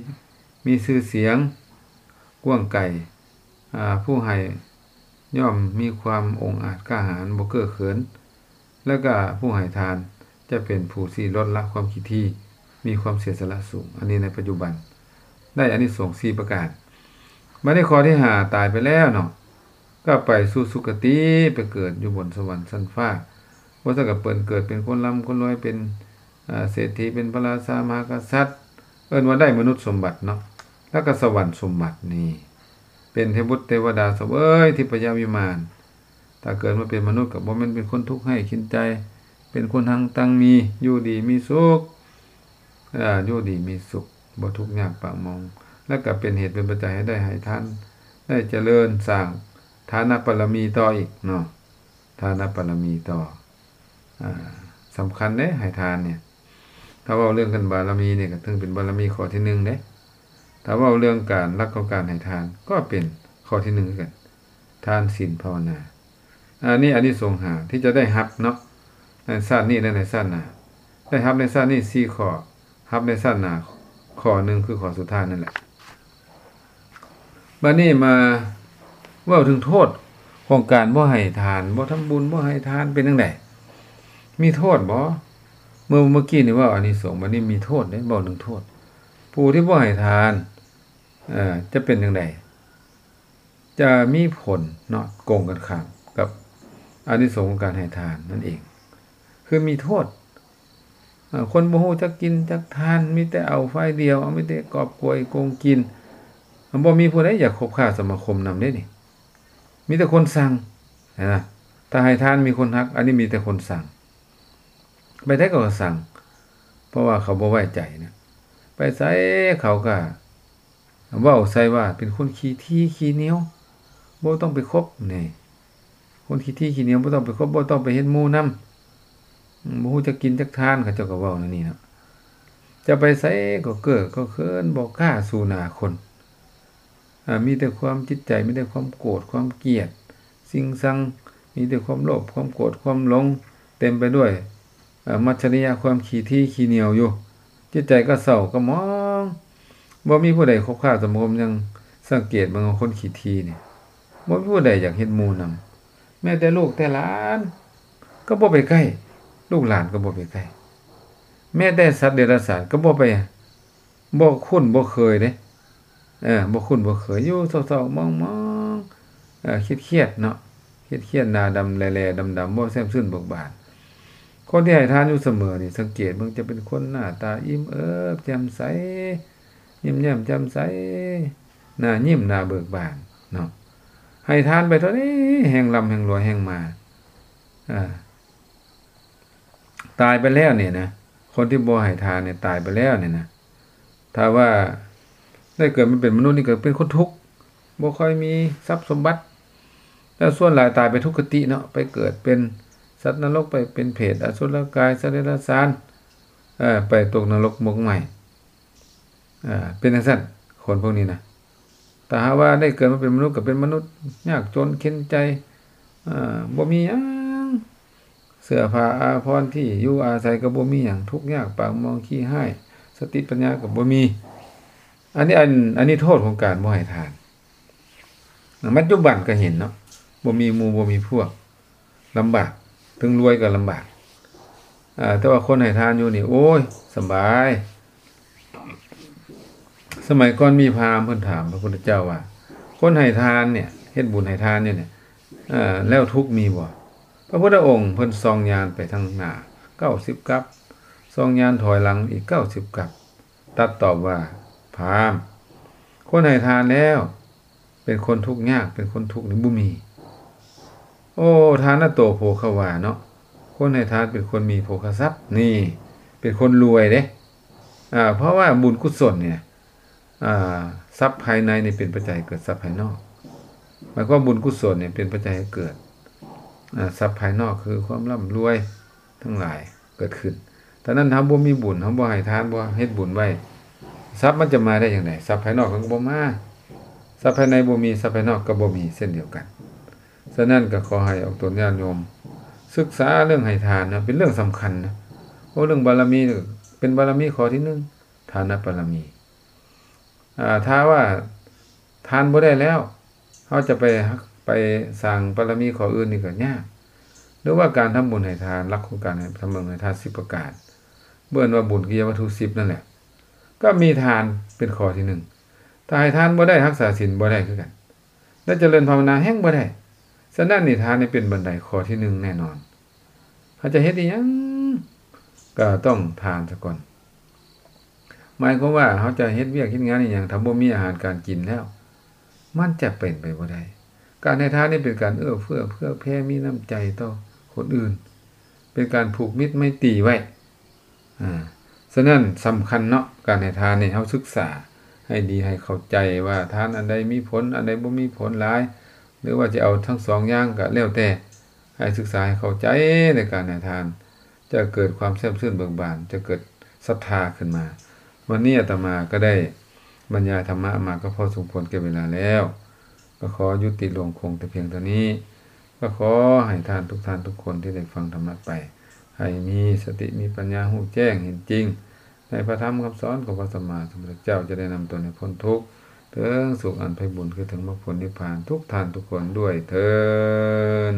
ມີຊື່ສຽງກວ້າງໄກ ອາ ຜູ້ໃຫ້ຍ່ອມມີຄວາມອົງອາດກ້າຫານ ບໍ່ເກີ້ເຂີນ ແລ້ວກະຜູ້ໃຫ້ທານຈະເປັນຜູ້ທີ່ລົດລະຄວາມຂີ້ຖີ່ ມີຄວາມເສຍສະຫຼະສູງ. ອັນນີ້ໃນປັດຈຸບັນ ໄດ້ອານິສົງສີ່ປະການ. ບັດນີ້ຂໍ້ທີຫ້າ ຕາຍໄປແລ້ວເນາະ ກໍໄປສູ່ສຸຄະຕິ ໄປເກີດຢູ່ບົນສະຫວັນຊັ້ນຟ້າ ບໍ່ຊັ້ນກໍເປັນ ເກີດເປັນຄົນລ່ຳຄົນລວຍ ເປັນ ອາ ເສດຖີ ເປັນພະລາຊາມະຫາກະສັດ ເອີ້ນວ່າໄດ້ມະນຸດສົມບັດເນາະ ແລ້ວກໍສະຫວັນສົມບັດນີ້ ເປັນເທວະບຸດເທວະດາສະເຫວີຍທິບພະຍະວິມານ. ຖ້າເກີດມາເປັນມະນຸດກໍບໍ່ແມ່ນເປັນຄົນທຸກໄຮ້ເຂັນໃຈ, ເປັນຄົນຮັ່ງຕັ້ງມີ, ຢູ່ດີມີສຸກ, ເອີ ຢູ່ດີມີສຸກ, ບໍ່ທຸກຍາກປາກໝອງ, ແລະກໍເປັນເຫດເປັນປັດໄຈໃຫ້ໄດ້ໃຫ້ທານ, ໄດ້ຈະເລີນສ້າງທານະບາລະມີຕໍ່ອີກເນາະ. ທານະບາລະມີຕໍ່ ອາ ສຳຄັນເດ້ ໃຫ້ທານນີ້. ຖ້າເວົ້າເລື່ອງການບາລະມີນີ້ ກໍຖືເປັນບາລະມີຂໍ້ທີໜຶ່ງເດ້. ຖ້າເວົ້າເລື່ອງການ ຫຼັກຂອງການໃຫ້ທານ ກໍເປັນຂໍ້ທີໜຶ່ງຄືກັນ, ທານ ສິນ ພາວະນາ. ອັນນີ້ອານິສົງຫ້າທີ່ຈະໄດ້ຮັບເນາະ ໃນຊາດນີ້ ແລະ ໃນຊາດໜ້າ. ໄດ້ຮັບໃນຊາດນີ້ສີ່ຂໍ້, ຮັບໃນຊາດໜ້າຂໍ້ໜຶ່ງ ຄືຂໍ້ສຸດທ້າຍນັ້ນແຫຼະ. ບາດນີ້ມາເວົ້າເຖິງໂທດຂອງການບໍ່ໃຫ້ທານ, ບໍ່ທຳບຸນ, ບໍ່ໃຫ້ທານ ເປັນຈັ່ງໃດ? ມີໂທດບໍ່? ເມື່ອ ເມື່ອກີ້ນີ້ເວົ້າອານິສົງ, ບາດນີ້ມີໂທດເດ້, ເວົ້າເຖິງໂທດ. ຜູ້ທີ່ບໍ່ໃຫ້ທານ ເອີ ຈະເປັນຈັ່ງໃດ? ຈະມີຜົນເນາະ ກົງກັນຂ້າມກັບອານິສົງຂອງການໃຫ້ທານນັ້ນເອງ, ຄືມີໂທດ. ເອີ ຄົນບໍ່ຮູ້ຈັກກິນຈັກທານ, ມີແຕ່ເອົາຝ່າຍດຽວ, ເອົາ ມີແຕ່ກອບໂກຍໂກງກິນ, ບໍ່ມີຜູ້ໃດຢາກຄົບຄ້າສະມາຄົມນຳເດ້ນີ້. ມີແຕ່ຄົນຊັງ, ເຫັນນະ? ຖ້າໃຫ້ທານມີຄົນຮັກ, ອັນນີ້ມີແຕ່ຄົນຊັງ. ໄປໃສເຂົາກໍຊັງ, ເພາະວ່າເຂົາບໍ່ໄວ້ໃຈນະ. ໄປໃສເຂົາກໍ ເວົ້າໃສ່ວ່າເປັນຄົນຂີ້ຖີ່ຂີ້ໜຽວ, ບໍ່ຕ້ອງໄປຄົບນີ້. ຄົນຂີ້ຖີ່ຂີ້ໜຽວ ບໍ່ຕ້ອງໄປຄົບ, ບໍ່ຕ້ອງໄປເຮັດໝູ່ນຳ, ບໍ່ຮູ້ຈັກກິນຈັກທານ, ເຂົາເຈົ້າກໍເວົ້າແນວນີ້ເນາະ. ຈະໄປໃສກໍເກີກກໍເຂີນ, ບໍ່ກ້າສູ້ໜ້າຄົນ. ອາ ມີແຕ່ຄວາມຈິດໃຈ ມີແຕ່ຄວາມໂກດຄວາມກຽດ, ຊິງຊັງ, ມີແຕ່ຄວາມໂລບ ຄວາມໂກດ ຄວາມຫຼົງ, ເຕັມໄປດ້ວຍ ອາ ມັດຊະລິຍະຄວາມຂີ້ຖີ່ຂີ້ໜຽວຢູ່. ຈິດໃຈກໍເສົ້າກໍໝອງ, ບໍ່ມີຜູ້ໃດຄົບຄ້າສະມາຄົມ. ຍັງສັງເກດເບິ່ງວ່າຄົນຂີ້ຖີ່ນີ້ ບໍ່ມີຜູ້ໃດຢາກເຮັດໝູ່ນຳ. ແມ້ແຕ່ລູກແຕ່ຫຼານກໍບໍ່ໄປໃກ້, ລູກຫຼານກໍບໍ່ໄປໃກ້. ແມ້ແຕ່ສັດເດຍລະສານກໍບໍ່ໄປ ບໍ່ຄຸ້ນບໍ່ເຄີຍເດ້, ເອີ ບໍ່ຄຸ້ນບໍ່ເຄີຍ, ຢູ່ເສົ້າໆໝອງໆ, ເອີ ຄຽດໆເນາະ, ຄຽດໆ ໜ້າດຳແຫຼໆດຳໆ, ບໍ່ແຈ່ມຊື່ນເບີກບານ. ຄົນທີ່ໃຫ້ທານຢູ່ສະເໝີນີ້ ສັງເກດເບິ່ງຈະເປັນຄົນໜ້າຕາອີ່ມເອີບແຈ່ມໃສ, ຍິ້ມແຍ້ມແຈ່ມໃສ, ໜ້າຍິ້ມໜ້າເບີກບານເນາະ. ໃຫ້ທານໄປເທົ່າໃດ ແຮ່ງລ່ຳແຮ່ງລວຍແຮ່ງມາ, ອາ ຕາຍໄປແລ້ວນີ້ນະ, ຄົນທີ່ບໍ່ໃຫ້ທານນີ້ຕາຍໄປແລ້ວນີ້ນະ, ຖ້າວ່າໄດ້ເກີດມາເປັນມະນຸດນີ້ກໍເປັນຄົນທຸກ, ບໍ່ຄ່ອຍມີຊັບສົມບັດ, ແລ້ວສ່ວນຫຼາຍຕາຍໄປທຸກຄະຕິເນາະ, ໄປເກີດເປັນສັດນະລົກ, ໄປເປັນເປດ, ອະສຸລະກາຍ, ສັດເດຍລະສານ, ເອີ ໄປຕົກນະລົກໝົກໄໝ້. ເປັນຈັ່ງຊັ້ນ ຄົນພວກນີ້ນະ. ຖ້າຫາກວ່າໄດ້ເກີດມາເປັນມະນຸດ ກໍເປັນມະນຸດຍາກຈົນເຂັນໃຈ, ບໍ່ມີຫຍັງ, ເສື້ອຜ້າອາພອນ ທີ່ຢູ່ອາໄສກໍບໍ່ມີຫຍັງ, ທຸກຍາກປາກໝອງ ຂີ້ຮ້າຍ, ສະຕິປັນຍາກໍບໍ່ມີ. ອັນນີ້ ອັນ ອັນນີ້ໂທດຂອງການບໍ່ໃຫ້ທານ. ປັດຈຸບັນກໍເຫັນເນາະ, ບໍ່ມີໝູ່ບໍ່ມີພວກ ລຳບາກ, ເຖິງລວຍກໍລຳບາກ. ອາ ແຕ່ວ່າຄົນໃຫ້ທານຢູ່ນີ້ ໂອ້ຍ ສະບາຍ. ສະໄໝກ່ອນມີພາມເພິ່ນຖາມພະພຸດທະເຈົ້າວ່າ ຄົນໃຫ້ທານເນຍ ເຮັດບຸນໃຫ້ທານຢູ່ເນຍ ເອີ ແລ້ວທຸກມີບໍ່? ພະພຸດທະອົງເພິ່ນສ່ອງຍານໄປທາງໜ້າເກົ້າສິບກັບ, ສ່ອງຍານຖອຍຫຼັງອີກເກົ້າສິບກັບ. ຕັດຕອບວ່າ ພາມ, ຄົນໃຫ້ທານແລ້ວ ເປັນຄົນທຸກຍາກ ເປັນຄົນທຸກນີ້ບໍ່ມີ. ໂອ ທານະໂຕໂພຄະວາເນາະ, ຄົນໃຫ້ທານເປັນຄົນມີໂພຄະຊັບ, ນີ້ເປັນຄົນລວຍເດ້. ອາ ເພາະວ່າບຸນກຸສົນນີ້ນະ ອາ ຊັບພາຍໃນນີ້ເປັນປັດໄຈເກີດຊັບພາຍນອກ. ໝາຍຄວາມບຸນກຸສົນນີ້ເປັນປັດໄຈໃຫ້ເກີດ ອາ ຊັບພາຍນອກ ຄືຄວາມລ່ຳລວຍທັງຫຼາຍເກີດຂຶ້ນ. ຕອນນັ້ນເຮົາບໍ່ມີບຸນ, ເຮົາບໍ່ໃຫ້ທານ, ບໍ່ເຮັດບຸນໄວ້, ຊັບມັນຈະມາໄດ້ຈັ່ງໃດ? ຊັບພາຍນອກມັນກໍບໍ່ມາ, ຊັບພາຍໃນບໍ່ມີ, ຊັບພາຍນອກກໍບໍ່ມີເຊັ່ນດຽວກັນ. ສະນັ້ນກໍຂໍໃຫ້ອອກຕົນຍາດໂຍມສຶກສາເລື່ອງໃຫ້ທານນະ, ເປັນເລື່ອງສຳຄັນນະ. ເວົ້າເລື່ອງບາລະມີ, ເປັນບາລະມີຂໍ້ທີໜຶ່ງ, ທານະບາລະມີ. ອາ ຖ້າວ່າທານບໍ່ໄດ້ແລ້ວ ເຮົາຈະໄປ ໄປສ້າງບາລະມີຂໍ້ອື່ນນີ້ກໍຍາກ. ຫຼືວ່າການທຳບຸນໃຫ້ທານ, ຫຼັກຂອງການທຳບຸນໃຫ້ທານສິບປະການ, ເອີ້ນວ່າບຸນກິລິຍາວັດຖຸສິບນັ້ນແຫຼະ, ກໍມີທານເປັນຂໍ້ທີໜຶ່ງ. ຖ້າໃຫ້ທານບໍ່ໄດ້, ຮັກສາສິນບໍ່ໄດ້ຄືກັນ, ແລະ ຈະເລີນພາວະນາແຮ່ງບໍ່ໄດ້. ສະນັ້ນນີ້ ທານນີ້ເປັນບັນໄດຂໍ້ທີໜຶ່ງແນ່ນອນ. ເຮົາຈະເຮັດອີ່ຫຍັງກໍຕ້ອງທານສາກ່ອນ. ໝາຍຄວາມວ່າເຮົາຈະເຮັດວຽກເຮັດງານອີ່ຫຍັງ, ຖ້າບໍ່ມີອາຫານການກິນແລ້ວ, ມັນຈະເປັນໄປບໍ່ໄດ້. ການໃຫ້ທານນີ້ເປັນການເອື້ອເຟື້ອເຜື່ອແຜ່ ມີນ້ຳໃຈຕໍ່ຄົນອື່ນ, ເປັນການຜູກມິດໄມຕີໄວ້. ອາ ສະນັ້ນສຳຄັນເນາະ ການໃຫ້ທານນີ້ ເຮົາສຶກສາໃຫ້ດີ ໃຫ້ເຂົ້າໃຈວ່າທານອັນໃດມີຜົນ ອັນໃດບໍ່ມີຜົນຫຼາຍ ຫຼືວ່າຈະເອົາທັງສອງຢ່າງກໍແລ້ວແຕ່ ໃຫ້ສຶກສາໃຫ້ເຂົ້າໃຈໃນການໃຫ້ທານ ຈະເກີດຄວາມແຊ່ມຊື່ນເບີກບານ ຈະເກີດສັດທາຂຶ້ນມາ. ວັນນີ້ອາດຕະມາກໍໄດ້ບັນຍາຍທຳມະມາກໍພໍສົມຄວນແກ່ເວລາແລ້ວ ກໍຂໍຍຸຕິລົງຄົງແຕ່ພຽງເທົ່ານີ້. ກໍຂໍໃຫ້ທ່ານທຸກທ່ານທຸກຄົນທີ່ໄດ້ຟັງທຳມະໄປ ໃຫ້ມີສະຕິມີປັນຍາ ຮູ້ແຈ້ງເຫັນຈິງໃນພະທຳຄຳສອນຂອງພະສຳມາສຳພຸດທະເຈົ້າ, ຈະໄດ້ນຳຕົນໃຫ້ພົ້ນທຸກ ເຖິງສຸກອັນໄພບູນ ຄືເຖິງມັກຜົນນິບພານ ທຸກທ່ານທຸກຄົນດ້ວຍເທີ້ນ.